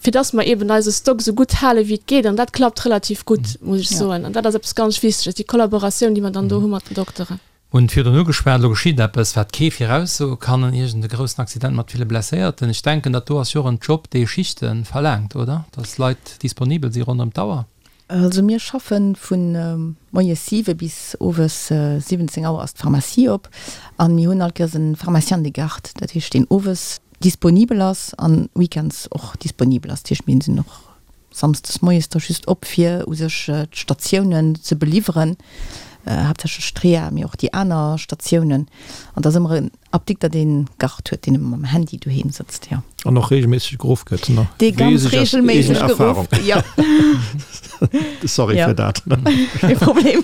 fir dass mer eben eise Stock esou gutt hale wéi et geet, an dat klappt relativ gutt, muss ech soen. An dat ass eppes ganz Wichteges, déi Kollaboratioun, déi mer dann do hu mat den Dokteren. Mir hunn virdrun ugeschwat, elo geschitt eppes, wat kee viraussoe kann, iergend e groussen Accident mat ville Blesséierten. Ech denken, dat do ass jo och en Job, dee Schichte verlaangt, oder? Dass Leit disponibel si ronderëm d'Auer. Also mir schaffe vu moies 7 bis owes 17 Auer ass d'Pharmacie op an mir hunn all Kéiers e Pharmacien de garde, dat heescht deen owes disponibel ass an weekends och disponibel ass. Dat heescht mir sinn och samsdes moies da just op fir u sech d'Statiounen ze beliwweren, haaptsächlech d'Reha, mee och déi aner Statiounen. An et ass ëmmer en Apdikter deen Gard huet, deen ëmmer mam Handy doheem sëtzt, jo. An och regelméisseg geruff gëtt, ne? Dee ganz regelméisseg geruff, jo. Sorry fir dat. Kee Problem.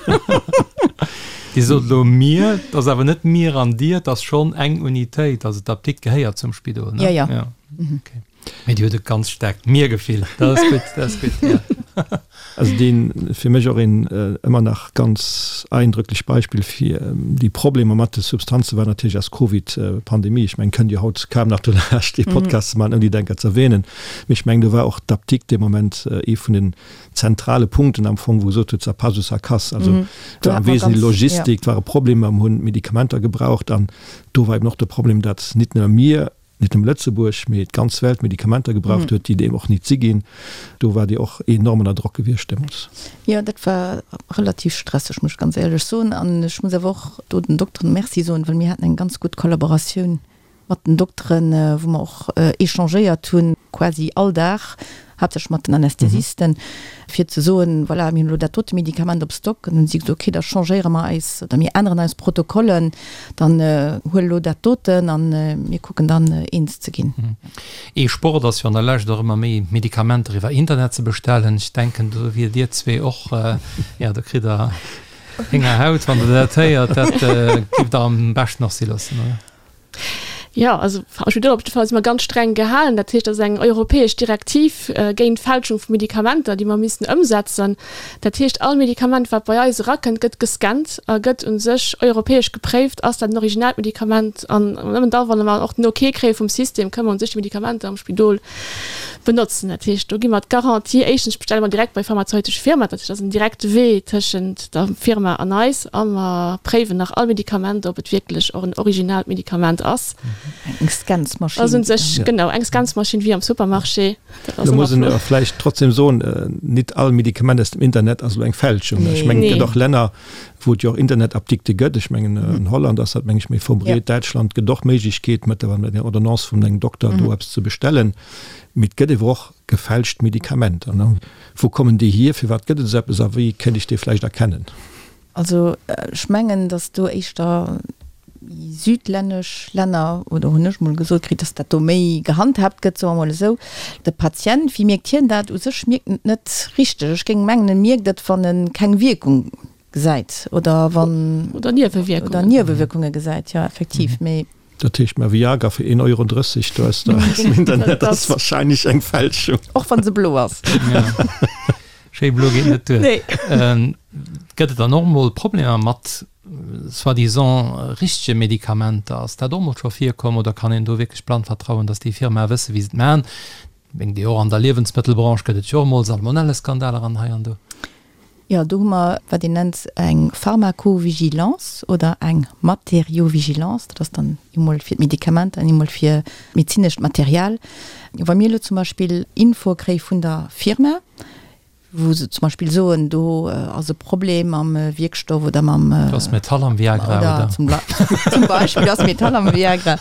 Dir sot elo mir, et ass awer net mir an dir, et ass schonn eng Unitéit, also d'Apdikt gehéiert zum Spidol, ne? Jo, jo. Okay. Mee Dir hutt e ganz staarkt Mir-Gefill, dat ass gutt, dat ass gutt, ja. Also deen fir mech och een ëmmer nach ganz eindrücklech Beispill fir déi Problemer mat de Substanze war natierlech eis Covid-Pandemie. Ech mengen, kënnt jo haut kaum nach dolaanscht dee Podcast ze maachen, ouni dat enker ze erwähnen. Mee ech mengen, do war och d'Apdikt dee Moment ee vun den zentrale Punkten am Fong, wou gesot huet, ça passe ou ça casse. Also war am Wesentlichen Logistik, ware Problemer, mer hunn Medikamenter gebraucht an do war eben och de Problem, datt nit nëmme mir, nit nëmme Lëtzebuerg, mee d'ganz Welt Medikamenter gebraucht huet, déi et eben och nit si ginn. Do war Dir och enorm ënner Drock gewiescht deemools. Jo, dat war relativ stresseg, muss ech ganz éierlech soen. An ech muss awer och do den Dokteren Merci soen, well mir haten eng ganz gutt Kollaboratioun mat den Dokteren, wou mer och échangéiert hunn. quasi all Dag, haaptsächlech mat den Anästhesisten, fir ze soen, voilà, mir hunn elo dat dote Medikament op Stock. An hunn si gesot, okay, da changéiere mer eis oder mir änneren eis Protokollen, dann huel elo dat doten a mir kucken dann eens ze ginn. Ee Sport ass jo an der Lescht och ëmmer méi Medikamenter iwwer Internet ze bestellen. Ech denken, do wier Dir zwee och, jo, do kritt Der Héngerhaut, wann Der dat héiert. Dat géift Der am beschten och si loossen, oder? Jo, also am Spidol op jidde Fall si mer ganz streng gehalen. Dat heescht, dat ass eng europäesch Direktiv géint d'Fälschung vu Medikamenter, déi mer missten ëmsetzen. Dat heescht, all Medikament, wat bei eis erakënnt, gëtt gescannt a gëtt u sech europäesch gepréift, ass dat en originaalt Medikament. An nëmmen da, wann mer och den Ok kréie vum System, kënne mer u sech déi Medikamenter am Spidol benotzen. Dat heescht, do gi mer d'Garantie, éischtens bestelle mer direkt bei pharmazeutesche Firma, dat heescht, dat ass en direkte Wee tëschent der Firma an eis, a mer préiwen nach all Medikament, ob et wierklech och en originaalt Medikament ass. Eng Scansmaschinn. Ass un sech, genau, eng Scansmaschinn wéi am Supermarché. Dat ass Lo muss ëmmer een flott. vläicht trotzdem soen, nit all Medikament aus dem Internet ass elo eng Fälschung. Ech mengen, et gëtt och Länner, wou et jo och Internetapdikte gëtt. Ech mengen, an Holland ass dat, meng ech, méi verbreet. Däitschland gëtt och Méiglechkeet, mëttlerweil mat enger Ordonnance vun engem Dokter do eppes ze bestellen. Mee et gëtt ewer och gefälscht Medikamenter. Wou kommen déi hier? Firwat gëtt et esou eppes a wéi kéint ech déi vläicht erkennen? Also ech mengen, datt do éischter méi südlännesch Länner, oder hunn ech mol gesot kritt, datt dat do méi gehandhaabt gëtt, soe mer mol esou. De Patient, wéi mierkt hien dat? U sech mierkt en et net richteg. Ech géing mengen, e mierkt et, wann e keng Wierkung gesäit oder wann. Oder Niewewierkungen. Oder Niewewierkunge gesäit, jo, effektiv. Mee. Dat heescht, mä Viagra fir 1,30 Euro do aus dem Internet ass wahrscheinlech eng Fälschung. Och wann se blo ass. Schéi blo geet net duer. Nee. Gëtt et dann och mol Problemer mat soi-disant richtege Medikamenter? Ass dat och mol scho virkomm oder kann een do wierklech blann vertrauen, datt déi Firmae wësse wéi se et maachen? Mengt Dir och an der Liewensmëttelbranche gëtt et jo och mol Salmonelleskandaler an hei an do. Jo, do hu mer wat een nennt eng Pharmacovigilance oder eng Matériovigilance. Dat ass dann eemol fir d'Medikamenter an eemol fir d'medezinescht Material. Wa mir elo zum Beispill Infoe kréie vun der Firma, wou se zum Beispill soen, do ass e Problem mam Wierkstoff oder mam. Do ass Metall am Viagra, oder? Zum Beispill, do ass Metall am Viagra.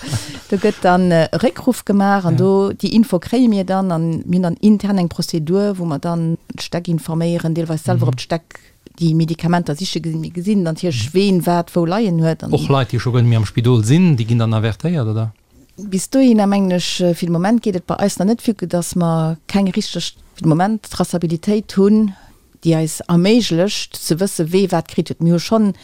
Do gëtt dann e Réckruff gemaach an do, déi Info kréie mir dann an mir hunn dann intern eng Prozedur, wou mer dann d'Stäck informéieren, deelweis selwer op d'Stäck déi Medikamenter siche ginn. Mir gesinn dann natierlech, ween wat wou leien huet. Och Leit, déi scho guer net méi am Spidol sinn, déi ginn dann avertéiert, oder? Bis dohinner mengen ech, fir de Moment geet et bei eis nach net, vue que dass mer keng richteg, fir de Moment, Traçabilitéit hunn, déi eis erméiglecht ze wësse wee wat kritt huet. Mir hu schonn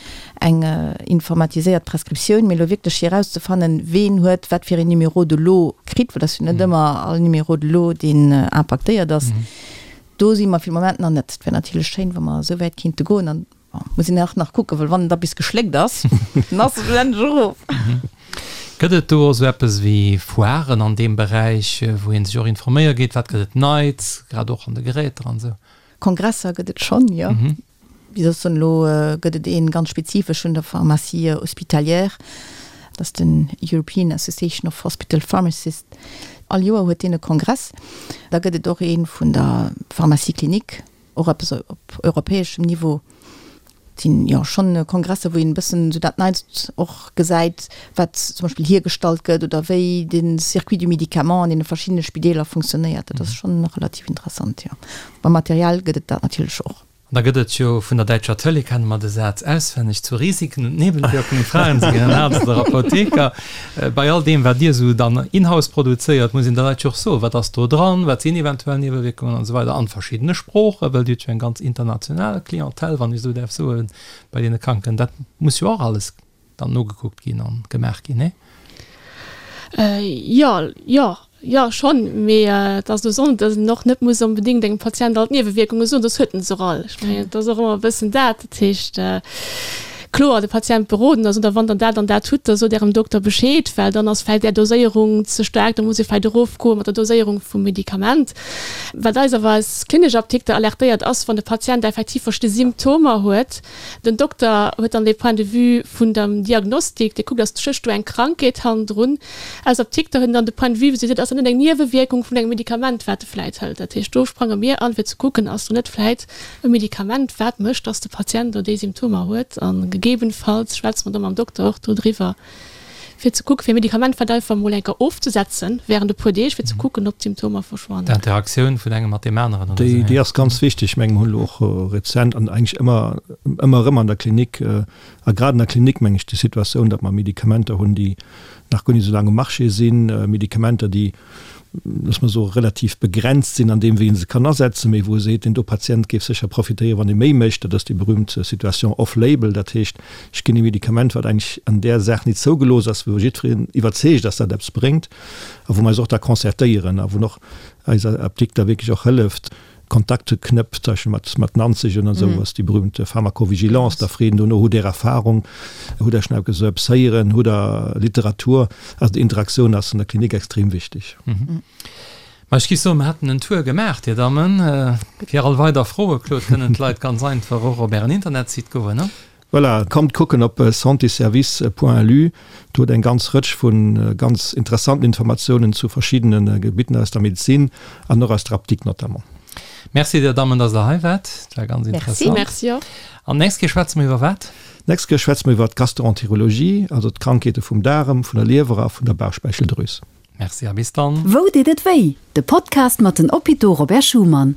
eng informatiséiert Prescriptioun, mee elo wierklech fir erauszefannen, ween huet wat fir een Numéro de lot kritt, well et ass jo net ëmmer all Numéro de lot, deen impaktéiert ass, do si mer fir de Moment nach net. Et wär natierlech schéin, wa mer esou wäit kinnte goen. An bon, muss een och nach kucken, well wann et da bis geschléckt ass, dann ass et schlussendlech erof. Gëtt et do och esou eppes wéi Foiren an deem Beräich, wou ee sech och informéiere geet, wat gëtt et Neits, grad och an de Geräter an esou? Kongresser gëtt et schonn, jo. Wéi soss soen, elo gëtt et ee ganz spezifesch vun der Pharmacie hospitalière, dat ass den European Association of Hospital Pharmacists. All Joer huet deen e Kongress. Da gëtt et och ee vun der Pharmacie clinique, och eppes op europäeschem Niveau. Et sinn jo schonn Kongresser, wou een e bëssen esou dat Neitst och gesäit, wat zum Beispill hiergestallt gëtt oder wéi de Circuit du médicament an deene verschiddene Spideeler funktionéiert. Dat ass schonn relativ interessant, jo. Beim Material gëtt et dat natierlech och. An da gëtt et jo vun der däitscher Tëlee, kenne mer de Saz auswenneg, zu Risiken und Nebenwirkungen fragen Sie Ihren Arzt oder Apotheker. Bei all deem, wat Dir esou dann in-house produzéiert, muss een de Leit jo och soen, wat ass do dran, wat sinn eventuell Niewewierkungen an esou weider an verschiddene Sproochen, well Dir hutt jo eng ganz international Clientèle, wann ech esou däerf soen, bei deene Kranken. Dat muss jo och alles dann nogekuckt ginn a gemaach ginn, nee? Jo, jo. Jo, schonn, mee et ass elo esou, datt een och net muss onbedéngt engem Patient all d'Niewewierkunge soen, soss huet en se och all. Ech mengen, et ass och ëmmer e bëssen dat. Dat heescht, kloer de Patient beroden a soen, da wann Der dat an dat hutt, da sot Ärem Dokter Bescheed, well dann ass vläicht Är Doséierung ze staark, da muss ee vläicht erofgoe mat der Doséierung vum Medikament. Wat eis awer als klinesch Apdikter alertéiert, ass, wann de Patient effektiv verschidde Symptomer huet, Den Dokter huet dann dee Point de vue vun dem Diagnostik, dee kuckt, ass stécht do eng Krankheet hannendrun. Aus Apdikter huet en dann de Point de vue, wou se seet, ass dat net eng Niewewierkung vun engem Medikament, wat e vläit hëlt. Dat heescht, do sprange mir an, fir ze kucken, ass do net vläit e Medikament, wat mécht, dass de Patient do déi Symptomer huet. A gegebenfalls schwätze mer da mam Dokter och dodriwwer. fir ze kucken, fir e Medikament wat einfach emol eng Kéier ofzesetzen während e puer Deeg, fir ze kucken, ob d'Symptomer verschwannen. D'Interaktioun vun engem mat deem aneren oder esou. Déi ass ganz wichteg. Ech mengen, mer hunn elo och rezent an eigentlech ëmmer, ëmmer erëm an der Klinik, a grad an der Klinik meng ech, déi Situatioun, datt mer Medikamenter hunn, déi nach guer net esou laang um Marché sinn, Medikamenter, déi, loosse mer soen, relativ begrenzt sinn an deem, wéi ee se kann asetzen, mee wou e seet, deen do Patient géif sécher profitéieren, wann e méi mécht. Dat ass déi berühmt Situation off-label. Dat heescht, ech ginn e Medikament, wat eigentlech an där Saach nit zougelooss ass, wou jiddwereen iwwerzeegt ass, dat eppes bréngt, a wou mer eis och da concertéieren a wou och eis Apdikter wierklech och hëlleft, Kontakte knëppt, zum Beispill mat, mat Nanzeg an esou ass déi berühmte Pharmacovigilance, da freet en dono, Hutt Där Erfahrung, hutt Der schonn eppes eppes héieren, hutt Der Literatur? Also déi Interaktioun ass an der Klinik extrem wichteg. Ma ech géif soen, mer hätten en Tour gemaach, Dir Dammen. Fir all weider Froe, Claude, kënnen d'Leit ganz einfach och op Ären Internetsite goen, ne? Voilà, kommt kucken op santéservice.lu, do huet eng ganz Rëtsch vu ganz interessanten Informatiounen zu verschiddene Gebitten aus der Medezin an och aus der Apdikt notamment. Merci dir Dammen, dass der hei waart. Dat war ganz interessant. Merci och. An d'nächst Kéier schwätze mer iwwer wat? D'nächst Kéier schwätze mer iwwer d'Gastroenterologie, also d'Krankheete vum Daarem, vun der Liewer a vun der Bauchspeicheldrüs. Merci a bis dann. Wou deet et wéi? De Podcast mat den Hôpitaux Robert Schuman.